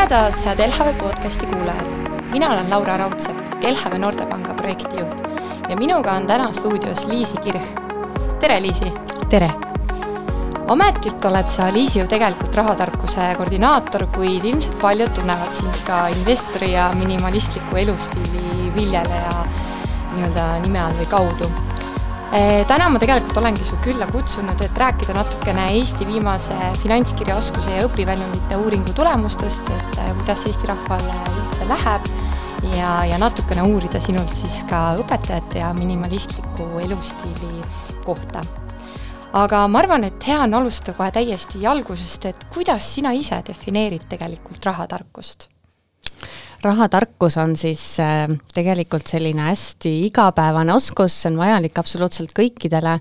Tere taas, head LHV podcasti kuulajad. Mina olen Laura Raudsepp, LHV Noortepanga projektijuht ja minuga on täna stuudios Liisi Kirch. Tere, Liisi! Tere! Ametlikult oled sa, Liisi, ju tegelikult rahatarkuse koordinaator, kuid ilmselt paljud tunnevad sind ka investori ja minimalistliku elustiili viljeleja nime all või kaudu. Täna ma tegelikult olengi su külla kutsunud, et rääkida natukene Eesti viimase finantskirjaoskuse ja õpiväljundite uuringu tulemustest, et kuidas Eesti rahvale üldse läheb ja natukene uurida sinult siis ka õpetajate ja minimalistliku elustiili kohta. Aga ma arvan, et hea on alustada kohe täiesti algusest, et kuidas sina ise defineerid tegelikult rahatarkust? Rahatarkus on siis tegelikult selline hästi igapäevane oskus, see on vajalik absoluutselt kõikidele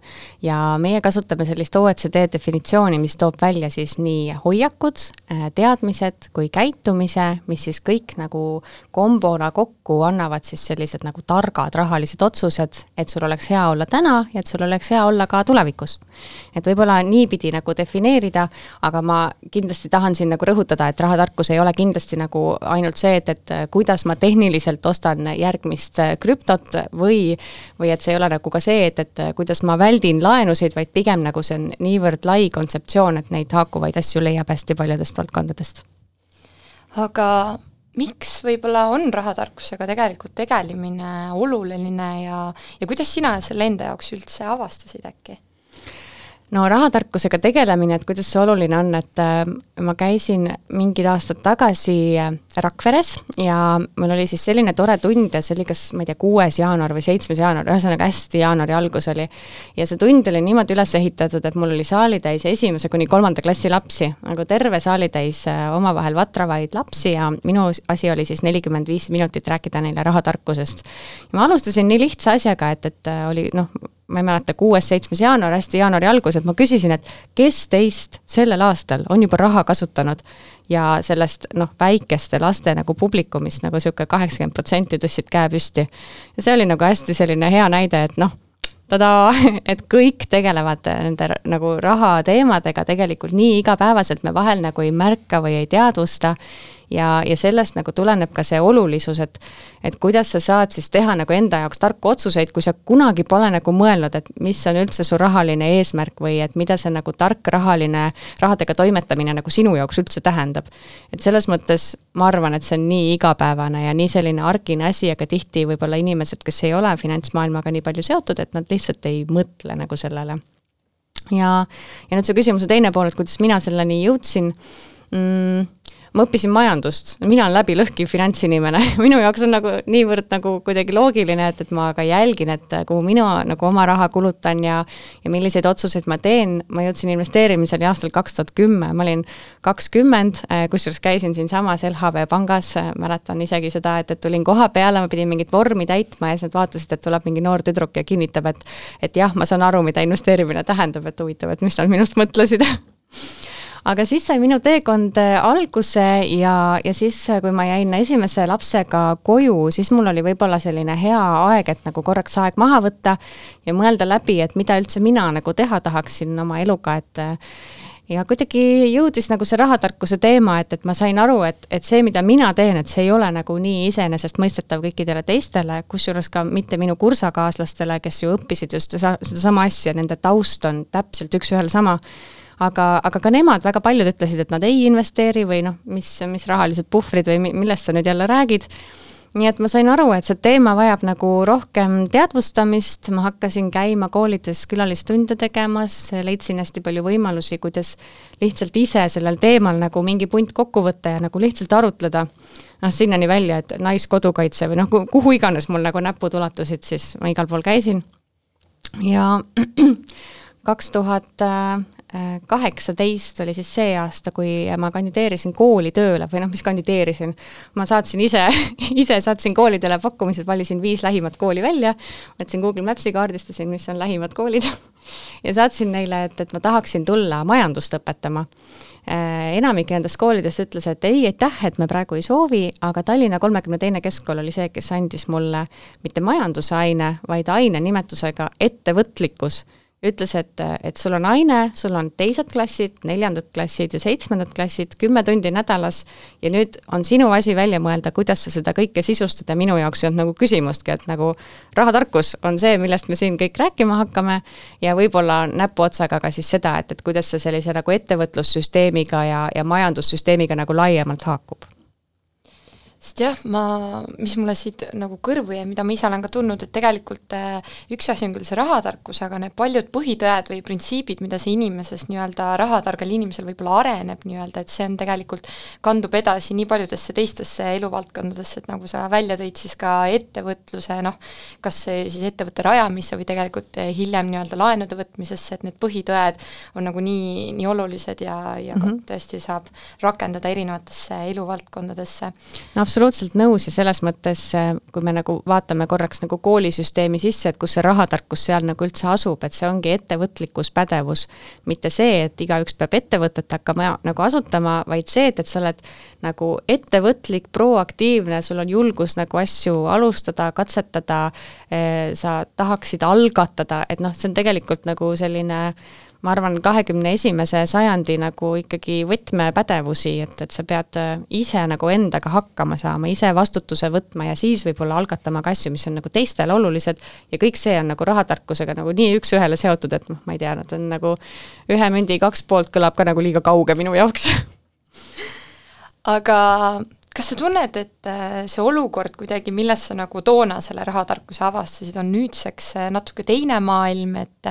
ja meie kasutame sellist OECD definitsiooni, mis toob välja siis nii hoiakud, teadmised kui käitumise, mis siis kõik nagu kombona kokku annavad siis sellised nagu targad rahalised otsused, et sul oleks hea olla täna ja et sul oleks hea olla ka tulevikus. Et võib-olla niipidi nagu defineerida, aga ma kindlasti tahan siin nagu rõhutada, et rahatarkus ei ole kindlasti nagu ainult see, et kuidas ma tehniliselt ostan järgmist krüptot või et see ei ole nagu ka see, et kuidas ma väldin laenusid, vaid pigem nagu see on niivõrd lai kontseptsioon, et neid haakuvaid asju leiab hästi paljudest valdkondadest. Aga miks võib-olla on rahatarkusega tegelikult tegelemine oluline ja kuidas sina selle enda jaoks üldse avastasid äkki? No rahatarkusega tegelemine, et kuidas see oluline on, et ma käisin mingid aastad tagasi Rakveres ja mul oli siis selline tore tund ja see oli kas, ma ei tea, 6. jaanuar või 7. jaanuar, ühesõnaga hästi jaanuari algus oli. Ja see tund oli niimoodi üles ehitatud, et mul oli saalitäis 1. kuni 3. klassi lapsi, nagu terve saalitäis omavahel vatravaid lapsi ja minu asi oli siis 45 minutit rääkida neile rahatarkusest. Ja ma alustasin nii lihtsa asjaga, et oli, ma ei mäleta, 6. 7. jaanuar, hästi jaanuari algus, et ma küsisin, et kes teist sellel aastal on juba raha kasutanud ja sellest väikeste laste nagu publikumist nagu siuke 80% tõstsid käe püsti. Ja see oli nagu hästi selline hea näide, et et kõik tegelevad nende nagu raha teemadega tegelikult nii igapäevaselt me vahel nagu ei märka või ei teadvusta ja sellest nagu tuleneb ka see olulisus, et kuidas sa saad siis teha nagu enda jaoks tarku otsuseid, kui sa kunagi pole nagu mõelnud, et mis on üldse su rahaline eesmärk või et mida see nagu tark rahadega toimetamine nagu sinu jaoks üldse tähendab. Et selles mõttes ma arvan, et see on nii igapäevane ja nii selline arkine asi, aga tihti võib-olla inimesed, kes ei ole finantsmaailmaga nii palju seotud, et nad lihtsalt ei mõtle nagu sellele. Ja nüüd see küsimuse teine pool, et kuidas mina selleni jõudsin, ma õppisin majandust, mina olen läbi lõhki finantsinimene, minu jaoks on nagu niivõrd nagu kuidagi loogiline, et ma ka jälgin, et kuhu minu nagu oma raha kulutan ja milliseid otsuseid ma teen. Ma jõudsin investeerimisel aastal 2010, ma olin 20, kusjuures käisin siin samas LHV pangas, mäletan isegi seda, et tulin koha peale, ma pidin mingit vormi täitma ja siis nad vaatasid, et tuleb mingi noor tüdruk ja kinnitab, et jah, ma saan aru, mida investeerimine tähendab, et huvitav, et mis nad minust mõtlesid. Aga siis sai minu teekond alguse ja siis, kui ma jäin esimese lapsega koju, siis mul oli võib-olla selline hea aeg, et nagu korraks aeg maha võtta ja mõelda läbi, et mida üldse mina nagu teha tahaksin oma eluga, ja kuidagi jõudis nagu see rahatarkuse teema, et ma sain aru, et see, mida mina teen, et see ei ole nagu nii iseenesest mõistetav kõikidele teistele, kusjuures ka mitte minu kursakaaslastele, kes ju õppisid just seda sama asja, nende taust on täpselt üks ühel sama. Aga ka nemad väga paljud ütlesid, et nad ei investeeri või mis rahalised puhvrid või millest sa nüüd jälle räägid. Nii et ma sain aru, et see teema vajab nagu rohkem teadvustamist, ma hakkasin käima koolides külalistunde tegemas, leidsin hästi palju võimalusi, kuidas lihtsalt ise sellel teemal nagu mingi punt kokku võtta ja nagu lihtsalt arutleda. Sinnani välja, et naiskodukaitse või kuhu iganes mul nagu näpud ulatusid, siis ma igal pool käisin. Ja 2018 oli siis see aasta, kui ma kandideerisin kooli tööle või mis kandideerisin. Ma saatsin ise saatsin koolidele pakkumised, valisin 5 lähimat kooli välja, võtsin Google Mapsi kaardistasin, mis on lähimad koolid ja saatsin neile, et ma tahaksin tulla majandust õpetama. Enamik nendest koolidest ütles, et ei, aitäh, et me praegu ei soovi, aga Tallinna 32. keskkool oli see, kes andis mulle mitte majandusaine, vaid aine nimetusega ettevõtlikkus. ütles, et sul on aine, sul on teised klassid, 4. klassid ja 7. klassid, 10 tundi nädalas ja nüüd on sinu asi välja mõelda, kuidas sa seda kõike sisustada. Minu jaoks ei olnud nagu küsimustki, et nagu rahatarkus on see, millest me siin kõik rääkima hakkame ja võib-olla näpuotsaga ka siis seda, et kuidas see sellise nagu ettevõtlussüsteemiga ja majandussüsteemiga nagu laiemalt haakub. Sest jah, mis mulle siit nagu kõrvu ja mida ma ise olen ka tundnud, et tegelikult üks asi on küll see rahatarkus, aga need paljud põhitõed või printsiibid, mida see inimesest nii-öelda rahatargal inimesel võib-olla areneb nii-öelda, et see on tegelikult, kandub edasi nii paljudesse teistesse eluvaldkondadesse, et nagu sa välja tõid siis ka ettevõtluse, kas see siis ettevõtte rajamisse või tegelikult hiljem nii-öelda laenude võtmisesse, et need põhitõed on nagu nii olulised ja tõesti saab rakendada erinevatesse eluvaldkondadesse. Absoluutselt nõus ja selles mõttes, kui me nagu vaatame korraks nagu koolisüsteemi sisse, et kus see rahatarkus seal nagu üldse asub, et see ongi ettevõtlikkus, pädevus, mitte see, et igaüks peab ettevõtet hakkama nagu asutama, vaid see, et sa oled nagu ettevõtlik, proaktiivne, sul on julgus nagu asju alustada, katsetada, sa tahaksid algatada, et see on tegelikult nagu selline ma arvan, 21. sajandi nagu ikkagi võtmepädevusi, et sa pead ise nagu endaga hakkama saama, ise vastutuse võtma ja siis võib-olla algatama ka asju, mis on nagu teistele olulised ja kõik see on nagu rahatarkusega nagu nii üks-ühele seotud, et ma ei tea, nad on nagu ühe mündi 2 poolt kõlab ka nagu liiga kauge minu jaoks. Aga kas sa tunned, et see olukord kuidagi, milles sa nagu toona selle rahatarkuse avastasid, on nüüdseks natuke teine maailm, et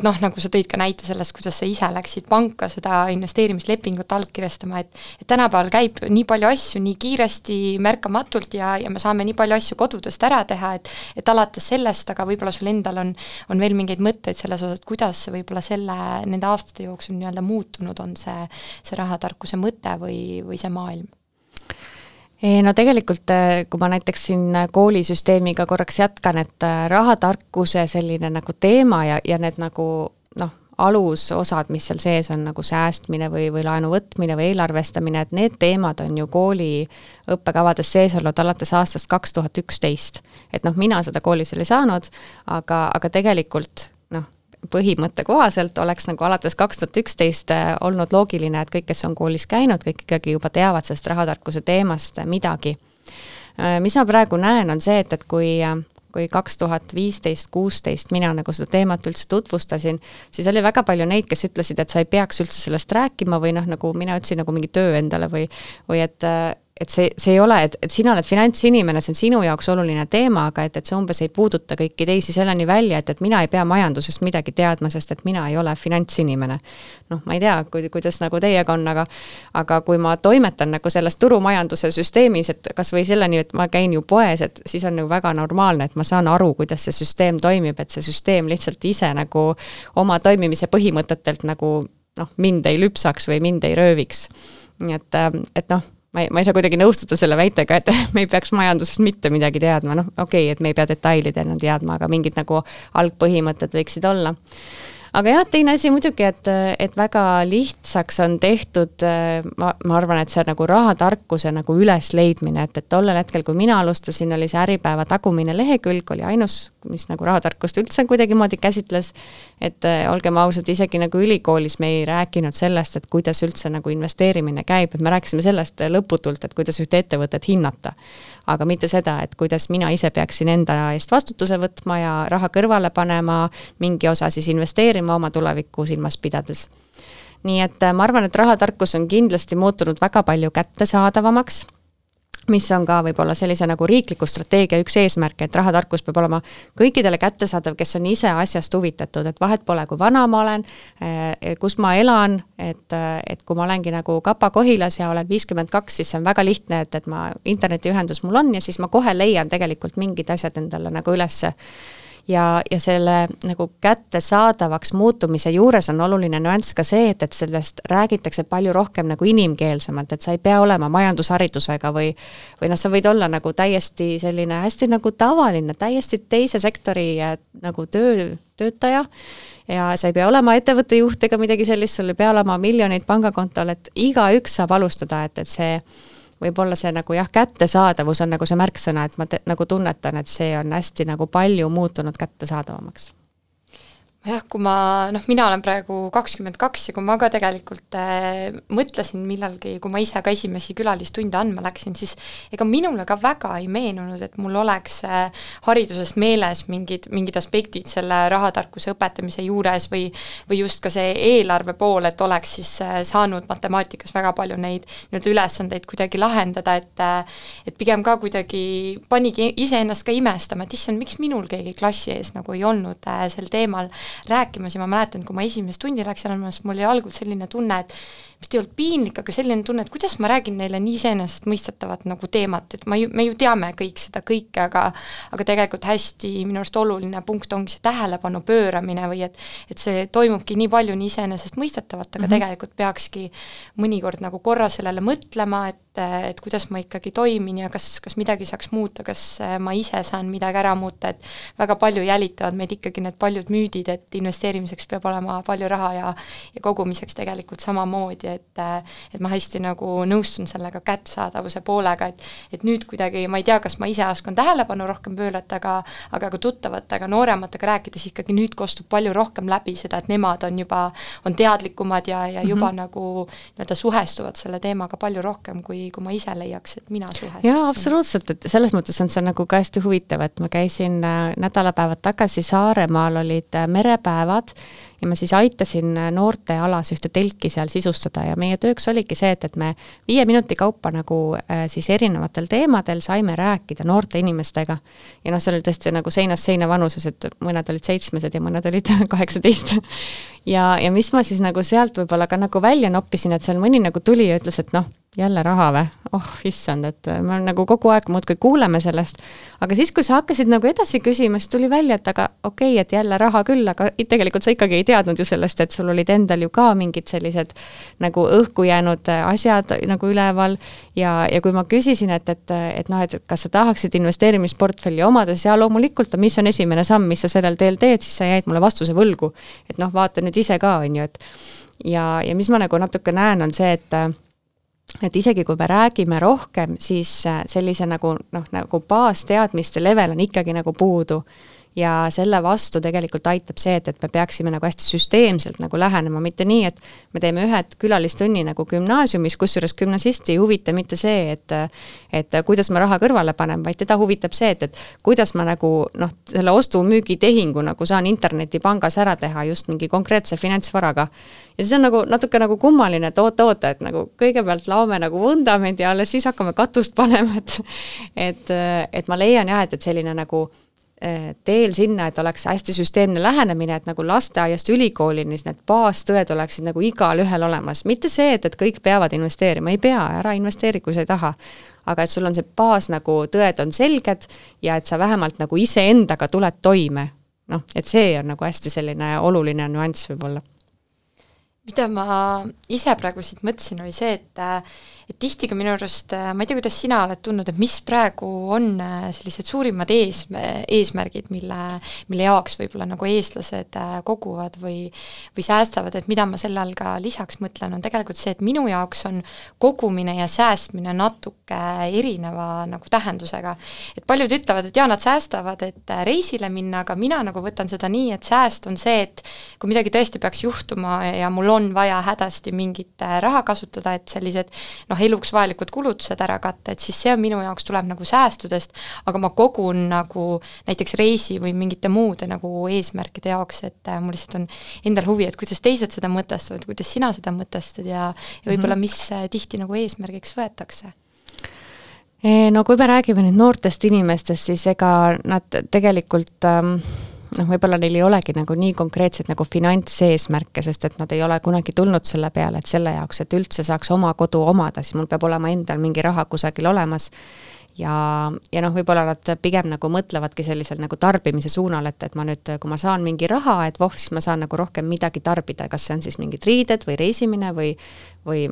nagu sa tõid ka näite sellest, kuidas sa ise läksid panka seda investeerimislepingut allkirjastama, et tänapäeval käib nii palju asju nii kiiresti, märkamatult ja me saame nii palju asju kodudest ära teha, et alates sellest, aga võib-olla sul endal on veel mingeid mõtteid selles osas, et kuidas võib-olla nende aastate jooksul nii-öelda muutunud on see rahatarkuse mõte või see maailm? No tegelikult, kui ma näiteks siin koolisüsteemiga korraks jätkan, et rahatarkuse selline nagu teema ja need nagu alusosad, mis seal sees on nagu säästmine või laenu võtmine või eelarvestamine, et need teemad on ju kooli õppekavades sees olnud alates aastast 2011. Et mina seda koolis veel ei saanud, aga tegelikult põhimõtte kohaselt oleks nagu alates 2011 olnud loogiline, et kõik, kes on koolis käinud, kõik ikkagi juba teavad sellest rahatarkuse teemast midagi. Mis ma praegu näen, on see, et kui 2015-16 mina nagu seda teemat üldse tutvustasin, siis oli väga palju neid, kes ütlesid, et sa ei peaks üldse sellest rääkima või nagu mina ütlesin nagu mingi töö endale või et see ei ole, et sina oled finantsinimene, see on sinu jaoks oluline teema, aga et see umbes ei puuduta kõiki teisi selleni välja, et mina ei pea majandusest midagi teadma, sest et mina ei ole finantsinimene. Ma ei tea, kuidas nagu teiega on, aga kui ma toimetan nagu selles turumajanduse süsteemis, et kas või selleni, et ma käin ju poes, et siis on nagu väga normaalne, et ma saan aru, kuidas see süsteem toimib, et see süsteem lihtsalt ise nagu oma toimimise põhimõtetelt nagu mind ei lüpsaks või mind ei rööviks. Nii et ma ei saa kuidagi nõustuda selle väitega, et me ei peaks majandusest mitte midagi teadma, okei, et me ei pea detailidena teadma, aga mingid nagu algpõhimõtted võiksid olla. Aga jah, teine asi muidugi, et väga lihtsaks on tehtud, ma arvan, et see nagu rahatarkuse nagu ülesleidmine, et tollel hetkel, kui mina alustasin, oli see Äripäeva tagumine lehekülg, oli ainus, mis nagu rahatarkust üldse kuidagi moodi käsitles, et olgem ausad, isegi nagu ülikoolis me ei rääkinud sellest, et kuidas üldse nagu investeerimine käib, et me rääkisime sellest lõputult, et kuidas ühte ettevõtet hinnata, aga mitte seda, et kuidas mina ise peaksin enda eest vastutuse võtma ja raha kõrvale panema, mingi osa siis investeerima oma tulevikku silmas pidades. Nii et ma arvan, et rahatarkus on kindlasti muutunud väga palju kättesaadavamaks, mis on ka võib-olla sellise nagu riikliku strateegia üks eesmärk, et rahatarkus peab olema kõikidele kättesaadav, kes on ise asjast huvitatud, et vahet pole, kui vana ma olen, kus ma elan, et kui ma olengi nagu Kapa-Kohilas ja olen 52, siis see on väga lihtne, et ma internetiühendus mul on ja siis ma kohe leian tegelikult mingid asjad endale nagu ülesse. Ja selle nagu kättesaadavaks muutumise juures on oluline nüanss ka see, et sellest räägitakse palju rohkem nagu inimkeelsemalt, et sa ei pea olema majandusharidusega või sa võid olla nagu täiesti selline hästi nagu tavaline, täiesti teise sektori nagu töötaja ja sa ei pea olema ettevõtte juht ega midagi sellist, sul ei pea olema miljoneid pangakontol, et igaüks saab alustada, et see võib-olla see nagu kättesaadavus on nagu see märksõna, et ma nagu tunnetan, et see on hästi nagu palju muutunud kättesaadavamaks. jah, kui mina olen praegu 22 ja kui ma ka tegelikult mõtlesin millalgi, kui ma ise ka esimesi külalistunde andma läksin, siis ega minule ka väga ei meenunud, et mul oleks hariduses meeles mingid aspektid selle rahatarkuse õpetamise juures või just ka see eelarve pool, et oleks siis saanud matemaatikas väga palju neid nii-öelda ülesandeid kuidagi lahendada, et pigem ka kuidagi panigi iseennast ka imestama, et issand, miks minul keegi klassi ees nagu ei olnud sel teemal rääkimas ja ma mäletan, kui ma esimest tundi läksin andma, siis mul oli algul selline tunne, et mis ei olnud piinlik, aga selline tunne, et kuidas ma räägin neile nii iseenesestmõistetavat nagu teemat, et me ju teame kõik seda kõike, aga tegelikult hästi minu arust oluline punkt ongi see tähelepanu pööramine või et see toimubki nii palju nii iseenesestmõistetavat, aga tegelikult peakski mõnikord nagu korra sellele mõtlema, et kuidas ma ikkagi toimin ja kas midagi saaks muuta, kas ma ise saan midagi ära muuta, et väga palju jälitavad meid ikkagi need paljud müüdid, et investeerimiseks peab olema palju raha ja kogumiseks tegelikult samamoodi, et ma hästi nagu nõustun sellega kättesaadavuse poolega, et nüüd kuidagi, ma ei tea, kas ma ise oskan tähelepanu rohkem pöörata, aga ka tuttavatega, noorematega rääkides ikkagi nüüd kostub palju rohkem läbi seda, et nemad on teadlikumad ja juba nagu nii-öelda suhestuvad selle teemaga palju rohkem, kui ma ise leiaks, et mina suhestusin. Jaa, absoluutselt, et selles mõttes on see nagu ka hästi huvitav, et ma käisin nädalapäevad tagasi Saaremaal, olid merepäevad ja ma siis aitasin noorte alas ühte telki seal sisustada ja meie tööks oligi see, et me 5 minuti kaupa nagu siis erinevatel teemadel saime rääkida noorte inimestega. Ja see oli tõesti nagu seinast seina vanuses, et mõned olid 7 ja mõned olid 18. Ja mis ma siis nagu sealt võib-olla ka nagu välja noppisin, et seal mõni nagu tuli ja ütles, et jälle raha või? Issand, et me nagu kogu aeg muudkui kuuleme sellest, aga siis, kui sa hakkasid nagu edasi küsima, siis tuli välja, et aga okei, et jälle raha küll, aga tegelikult sa ikkagi ei teadnud ju sellest, et sul olid endal ju ka mingid sellised nagu õhku jäänud asjad nagu üleval ja kui ma küsisin, et kas sa tahaksid investeerimisportfelli omades ja loomulikult, mis on esimene samm, mis sa sellel teel teed, siis sa jäid mulle vastuse võlgu, et vaata nüüd ise ka, on ju, et ja mis ma nagu natuke näen, on see, et isegi kui me räägime rohkem, siis sellise nagu baasteadmiste level on ikkagi nagu puudu ja selle vastu tegelikult aitab see, et me peaksime nagu hästi süsteemselt nagu lähenema, mitte nii, et me teeme ühe külalistunni nagu gümnaasiumis, kusjuures gümnasisti ei huvita mitte see, et kuidas ma raha kõrvale panen, vaid teda huvitab see, et kuidas ma nagu selle ostu-müügi tehingu nagu saan internetipangas ära teha just mingi konkreetse finantsvaraga. Ja siis on nagu natuke nagu kummaline, et oota, et nagu kõigepealt laome nagu vundamendi ja alles siis hakkame katust panema, et ma leian jah, et selline nagu teel sinna, et oleks hästi süsteemne lähenemine, et nagu lasteaiast ülikoolini need baastõed oleksid nagu igal ühel olemas. Mitte see, et kõik peavad investeerima, ei pea, ära investeeri, kui sa ei taha. Aga et sul on see baas nagu tõed on selged ja et sa vähemalt nagu ise endaga tuled toime. Et see on nagu hästi selline oluline nüanss võib-olla. Mida ma ise praegu siit mõtlesin, oli see, et tihti ka minu arust, ma ei tea, kuidas sina oled tundnud, et mis praegu on sellised suurimad eesmärgid, mille jaoks võib-olla nagu eestlased koguvad või säästavad, et mida ma selle all ka lisaks mõtlen, on tegelikult see, et minu jaoks on kogumine ja säästmine natuke erineva nagu tähendusega. Et paljud ütlevad, et nad säästavad, et reisile minna, aga mina nagu võtan seda nii, et sääst on see, et kui midagi tõesti peaks juhtuma ja mul on vaja hädasti mingit raha kasutada, et sellised eluks vajalikud kulutused ära katta, et siis see on minu jaoks tuleb nagu säästudest, aga ma kogun nagu näiteks reisi või mingite muude nagu eesmärkide jaoks, et mul lihtsalt on endal huvi, et kuidas teised seda mõtestavad, kuidas sina seda mõtestad ja võib-olla mis tihti nagu eesmärgiks võetakse. No kui me räägime nüüd noortest inimestest, siis ega nad tegelikult võib-olla neil ei olegi nagu nii konkreetselt nagu finantseesmärke, sest et nad ei ole kunagi tulnud selle peale, et selle jaoks, et üldse saaks oma kodu omada, siis mul peab olema endal mingi raha kusagil olemas ja võib-olla nad pigem nagu mõtlevadki sellisel nagu tarbimise suunal, et ma nüüd, kui ma saan mingi raha, et siis ma saan nagu rohkem midagi tarbida, kas see on siis mingid riided või reisimine või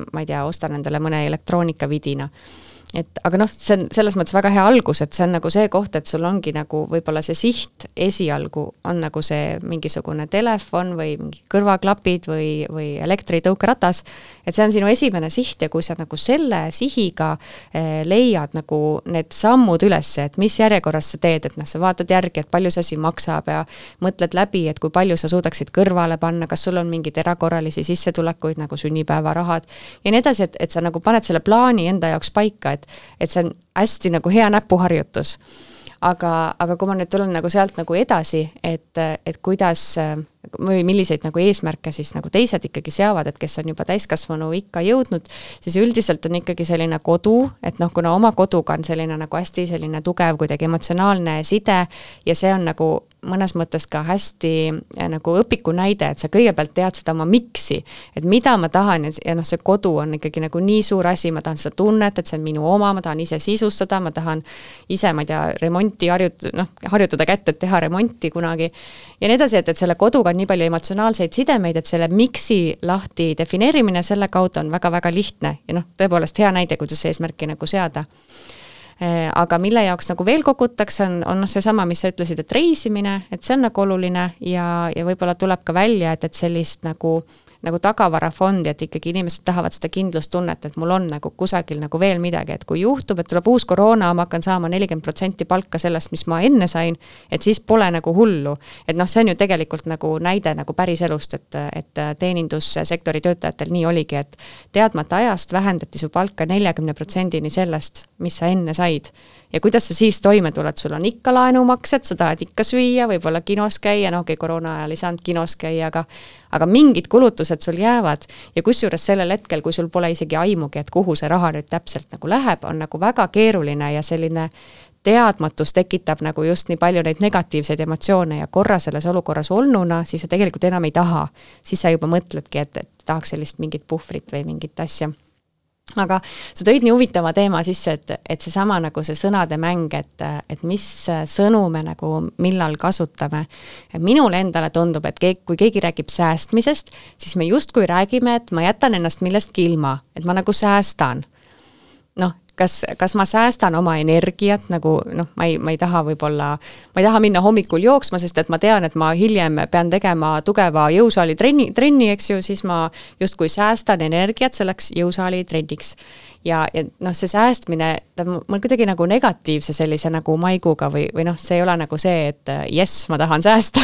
ma ei tea, ostan endale mõne elektroonikavidina. aga noh, see on selles mõttes väga hea algus, et see on nagu see koht, et sul ongi nagu võib-olla see siht esialgu on nagu see mingisugune telefon või mingi kõrvaklapid või elektritõukeratas, et see on sinu esimene siht ja kui sa nagu selle sihiga leiad nagu need sammud üles, et mis järjekorras sa teed, et noh, sa vaatad järgi, et palju see asi maksab ja mõtled läbi, et kui palju sa suudaksid kõrvale panna, kas sul on mingid erakorralisi sissetulekuid nagu sünnipäevarahad ja nii edasi, et sa nagu paned selle plaani enda jaoks paika, et see on hästi nagu hea näpuharjutus. Aga kui ma nüüd tulen nagu sealt nagu edasi, et kuidas või milliseid nagu eesmärke siis nagu teised ikkagi seavad, et kes on juba täiskasvanu ikka jõudnud, siis üldiselt on ikkagi selline kodu, et noh, kuna oma koduga on selline nagu hästi selline tugev kuidagi emotsionaalne side ja see on nagu mõnes mõttes ka hästi nagu õpiku näide, et sa kõigepealt tead seda oma miksi, et mida ma tahan ja noh, see kodu on ikkagi nagu nii suur asi, ma tahan seda tunnet, et see on minu oma, ma tahan ise sisustada, ma tahan ise, ma ei tea, remonti harjutada kätte, et teha remonti kunagi ja nii edasi, et selle koduga on nii palju emotsionaalseid sidemeid, et selle miksi lahti defineerimine selle kaudu on väga-väga lihtne ja noh, tõepoolest hea näide, kuidas eesmärki nagu seada. Aga mille jaoks nagu veel kogutakse, on seesama, mis sa ütlesid, et reisimine, et see on nagu oluline ja võib-olla tuleb ka välja, et sellist nagu tagavarafondi, et ikkagi inimesed tahavad seda kindlustunnet, et mul on nagu kusagil nagu veel midagi, et kui juhtub, et tuleb uus koroona, ma hakkan saama 40% palka sellest, mis ma enne sain, et siis pole nagu hullu. Et noh, see on ju tegelikult nagu näide nagu päris elust, et teenindussektori töötajatel nii oligi, et teadmata ajast vähendati su palka 40%-ni sellest, mis sa enne said. Ja kuidas sa siis toime tuled, sul on ikka laenumaksed, sa tahad ikka süüa, võib-olla kinos käia, noh, koroona ajal ei saanud kinos käia, aga mingid kulutused sul jäävad ja kusjuures sellel hetkel, kui sul pole isegi aimugi, et kuhu see raha nüüd täpselt nagu läheb, on nagu väga keeruline ja selline teadmatus tekitab nagu just nii palju neid negatiivseid emotsioone ja korra selles olukorras olnuna, siis sa tegelikult enam ei taha. Siis sa juba mõtledki, et tahaks sellist mingit puhvrit või mingit asja. Aga sa tõid nii huvitava teema sisse, et seesama nagu see sõnade mäng, et mis sõnu me nagu millal kasutame. Minule endale tundub, et kui keegi räägib säästmisest, siis me justkui räägime, et ma jätan ennast millestki ilma, et ma nagu säästan. Noh, kas ma säästan oma energiat, nagu noh, ma ei taha minna hommikul jooksma, sest et ma tean, et ma hiljem pean tegema tugeva jõusaali trenni, eks ju, siis ma justkui säästan energiat selleks jõusaali trenniks. Ja noh, see säästmine, mul kuidagi nagu negatiivse sellise nagu maiguga või noh, see ei ole nagu see, et yes, ma tahan säästa.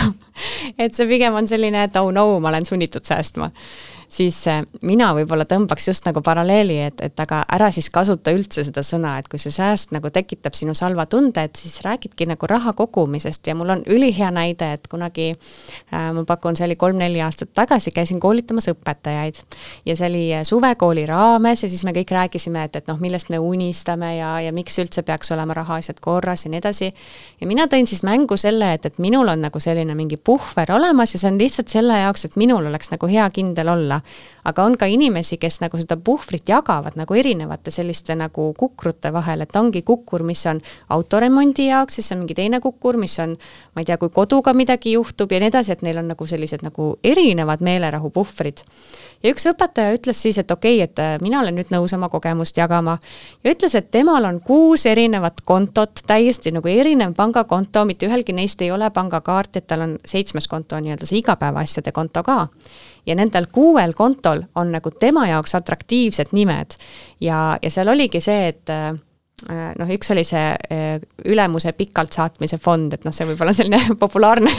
Et see pigem on selline, et oh no, ma olen sunnitud säästma. Siis mina võib-olla tõmbaks just nagu paralleeli, et aga ära siis kasuta üldse seda sõna, et kui see sääst nagu tekitab sinu salva tunde, et siis räägidki nagu raha kogumisest ja mul on ülihea näide, et kunagi ma pakun, see oli 3-4 aastat tagasi, käisin koolitamas õpetajaid ja see oli suvekooli raames ja siis me kõik rääkisime, et noh, millest me unistame ja miks üldse peaks olema rahaasjad korras ja nii edasi. Ja mina tõin siis mängu selle, et minul on nagu selline mingi puhver olemas ja see on lihtsalt selle jaoks, et minul oleks nagu hea kindel olla. Aga on ka inimesi, kes nagu seda puhvrit jagavad nagu erinevate selliste nagu kukrute vahel, et ongi kukkur, mis on autoremondi jaoks, siis on mingi teine kukkur, mis on, ma ei tea, kui koduga midagi juhtub ja nii edasi, et neil on nagu sellised nagu erinevad meelerahu puhvrid. Ja üks õpetaja ütles siis, et okei, et mina olen nüüd nõus oma kogemust jagama ja ütles, et temal on 6 erinevat kontot, täiesti nagu erinev pangakonto, mitte ühelgi neist ei ole pangakaart, et tal on 7. konto nii-öelda see igapäevaasjade konto ka. Ja nendel 6 kontol on nagu tema jaoks atraktiivsed nimed ja seal oligi see, et noh, üks oli see ülemuse pikalt saatmise fond, et noh, see võib olla selline populaarne,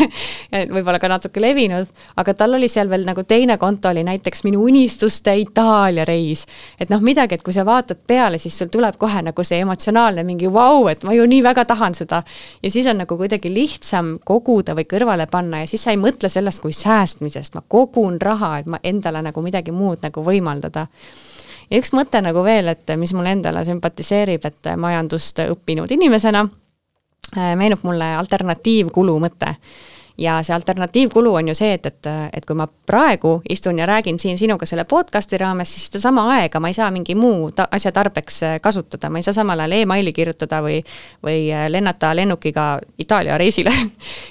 võib-olla ka natuke levinud, aga tal oli seal veel nagu teine konto oli näiteks minu unistuste Itaalia reis. Et noh, midagi, et kui sa vaatad peale, siis sul tuleb kohe nagu see emotsionaalne mingi vau, et ma ju nii väga tahan seda. Ja siis on nagu kuidagi lihtsam koguda või kõrvale panna ja siis sa ei mõtle sellest kui säästmisest, ma kogun raha, et ma endale nagu midagi muud nagu võimaldada. Ja üks mõte nagu veel, et mis mulle endale sümpatiseerib, et majandust õppinud inimesena meenub mulle alternatiivkulu mõte. Ja see alternatiivkulu on ju see, et kui ma praegu istun ja räägin siin sinuga selle podcasti raames, siis seda sama aega ma ei saa mingi muu asja tarbeks kasutada. Ma ei saa samal ajal e-maili kirjutada või lennata lennukiga Itaalia reisile.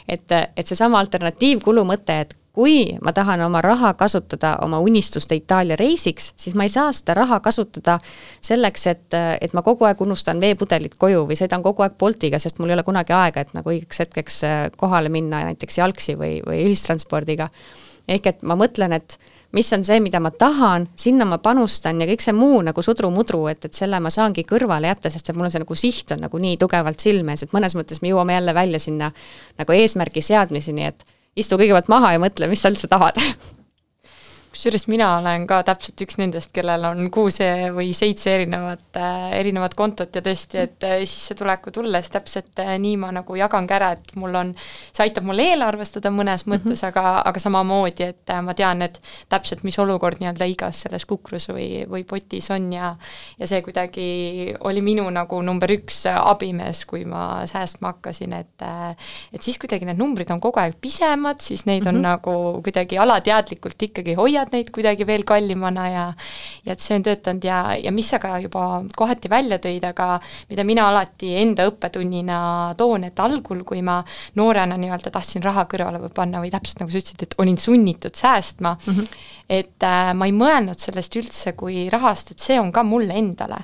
Et see sama alternatiivkulu mõte, et kui ma tahan oma raha kasutada oma unistuste Itaalia reisiks, siis ma ei saa seda raha kasutada selleks, et ma kogu aeg unustan veepudelit koju või sõidan kogu aeg Boltiga, sest mul ei ole kunagi aega, et nagu õigeks hetkeks kohale minna näiteks jalgsi või ühistranspordiga. Ehk et ma mõtlen, et mis on see, mida ma tahan, sinna ma panustan ja kõik see muu nagu sudru-mudru, et selle ma saangi kõrvale jätta, sest et mul on see nagu siht on nagu nii tugevalt silmes, et mõnes mõttes me jõuame jälle välja sinna nagu eesmärgi seadmiseni, et istu kõigepealt maha ja mõtle, mis sa üldse tahad. Kusjuures mina olen ka täpselt üks nendest, kellel on 6 või 7 erinevat kontot ja tõesti, et sissetuleku tulles täpselt nii ma nagu jagan ära, et see aitab mul eelarvestada mõnes mõttes, aga samamoodi, et ma tean, et täpselt mis olukord nii-öelda igas selles kukrus või potis on ja see kuidagi oli minu nagu number 1 abimees, kui ma säästma hakkasin, et siis kuidagi need numbrid on kogu aeg pisemad, siis neid on nagu kuidagi alateadlikult ikkagi hoiad neid kuidagi veel kallimana ja et see on töötanud ja mis sa ka juba kohati välja tõid, aga mida mina alati enda õppetunnina toon, et algul, kui ma noorena nii-öelda tahtsin raha kõrvale või panna või täpselt nagu sa ütlesid, et olin sunnitud säästma, et ma ei mõelnud sellest üldse kui rahast, et see on ka mulle endale.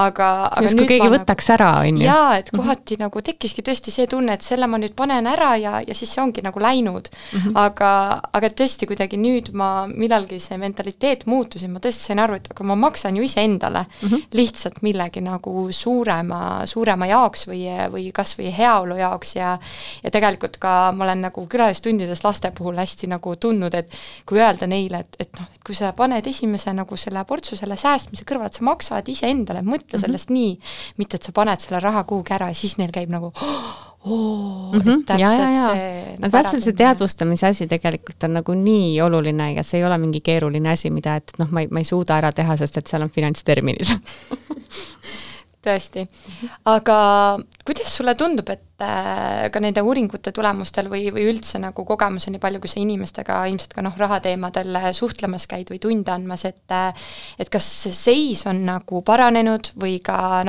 Aga just kui keegi võtaks ära, on ju? Jaa, et kohati nagu tekkiski tõesti see tunne, et selle ma nüüd panen ära ja siis see ongi nagu läinud. Aga tõesti kuidagi nüüd millalgi see mentaliteet muutus ja ma tõesti sain aru, et aga ma maksan ju ise endale lihtsalt millegi nagu suurema jaoks või kas või heaolu jaoks ja tegelikult ka ma olen nagu külalistundides laste puhul hästi nagu tundnud, et kui öelda neile, et kui sa paned esimese nagu selle portsu selle säästmise kõrval, et sa maksad ise endale, mõtle sellest nii, mitte et sa paned selle raha kuhugi ära ja siis neil käib nagu täpselt see teadvustamise asi tegelikult on nagu nii oluline ja see ei ole mingi keeruline asi, mida et ma ei suuda ära teha, sest et seal on finantsterminid. Tõesti. Aga kuidas sulle tundub, et ka nende uuringute tulemustel või üldse nagu kogemus on nii palju, kui sa inimestega ilmselt ka rahateemadel suhtlemas käid või tunde andmas, et kas see seis on nagu paranenud või ka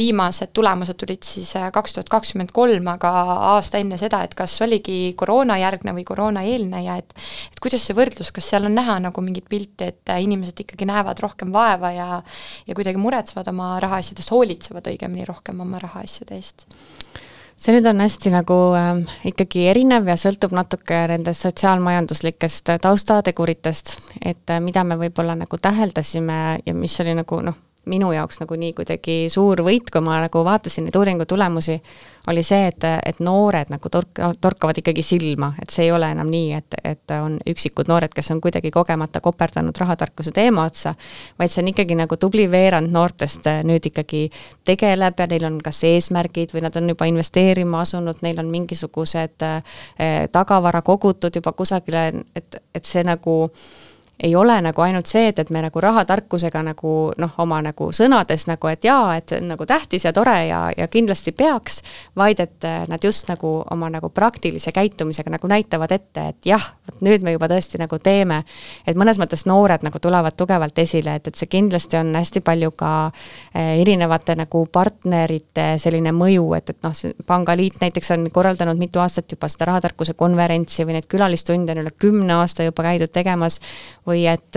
viimased tulemused tulid siis 2023, aga aasta enne seda, et kas oligi koroonajärgne või koroonaeelne ja et kuidas see võrdlus, kas seal on näha nagu mingit pilti, et inimesed ikkagi näevad rohkem vaeva ja kuidagi muretsevad oma rahaasjadest, hoolitsevad õigemini rohkem oma rahaasjade eest? See nüüd on hästi nagu ikkagi erinev ja sõltub natuke nendest sotsiaalmajanduslikest taustateguritest, et mida me võib-olla nagu täheldasime ja mis oli nagu minu jaoks nagu nii kuidagi suur võit, kui ma nagu vaatasin neid uuringu tulemusi, oli see, et noored nagu torkavad ikkagi silma, et see ei ole enam nii, et on üksikud noored, kes on kuidagi kogemata koperdanud rahatarkuse teema otsa, vaid see on ikkagi nagu tubli veerand noortest nüüd ikkagi tegeleb ja neil on kas eesmärgid või nad on juba investeerima asunud, neil on mingisugused tagavara kogutud juba kusagile, et see nagu ei ole nagu ainult see, et me nagu rahatarkusega nagu oma nagu sõnades nagu, et jaa, et nagu tähtis ja tore ja kindlasti peaks, vaid et nad just nagu oma nagu praktilise käitumisega nagu näitavad ette, et jah, nüüd me juba tõesti nagu teeme, et mõnes mõttes noored nagu tulevad tugevalt esile, et see kindlasti on hästi palju ka erinevate nagu partnerite selline mõju, et Pangaliit näiteks on korraldanud mitu aastat juba seda rahatarkuse konverentsi või neid külalistunde on üle 10 aasta juba käidud tegemas, või et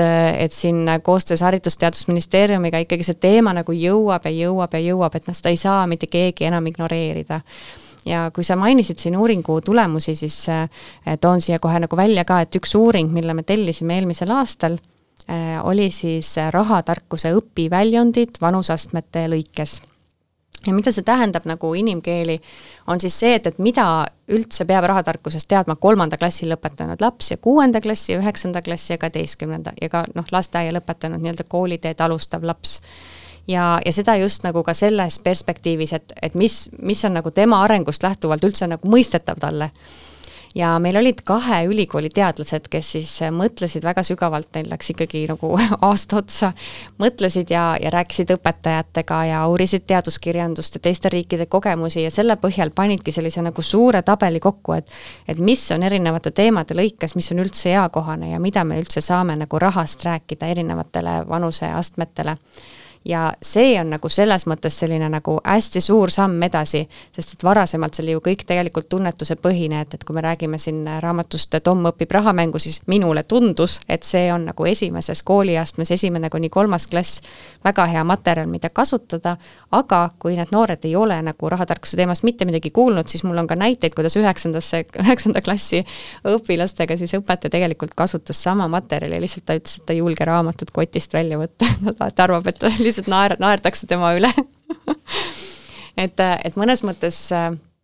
siin koostöös Haridusteadusministeeriumiga ikkagi see teema nagu jõuab, et seda ei saa mitte keegi enam ignoreerida. Ja kui sa mainisid siin uuringu tulemusi, siis toon siia kohe nagu välja ka, et üks uuring, mille me tellisime eelmisel aastal, oli siis rahatarkuse õpiväljundid vanusastmete lõikes. Ja mida see tähendab nagu inimkeeli, on siis see, et mida üldse peab rahatarkusest teadma 3. klassi lõpetanud laps ja 6. klassi, 9. klassi ja 12. ja ka lasteaia lõpetanud nii-öelda kooliteed alustav laps. Ja seda just nagu ka selles perspektiivis, et mis on nagu tema arengust lähtuvalt üldse nagu mõistetav talle. Ja meil olid 2 ülikooli teadlased, kes siis mõtlesid väga sügavalt, neil läks ikkagi nagu aasta otsa, mõtlesid ja rääkisid õpetajatega ja uurisid teaduskirjandust ja teiste riikide kogemusi ja selle põhjal panidki sellise nagu suure tabeli kokku, et mis on erinevate teemade lõikes, mis on üldse eakohane ja mida me üldse saame nagu rahast rääkida erinevatele vanuseastmetele. ja see on nagu selles mõttes selline nagu hästi suur samm edasi, sest et varasemalt see oli ju kõik tegelikult tunnetuse põhine, et kui me räägime siin raamatust Tom õpib rahamängu, siis minule tundus, et see on nagu esimeses kooliastmes 1.–3. klass väga hea materjal, mida kasutada, aga kui need noored ei ole nagu rahatarkuse teemast mitte midagi kuulnud, siis mul on ka näiteid, kuidas 9. klassi õpilastega siis õpetaja tegelikult kasutas sama materjali, lihtsalt ta ütles, et ta ei julge raamatut kotist välja võtta, ta arvab, et lihtsalt naerdakse tema üle et mõnes mõttes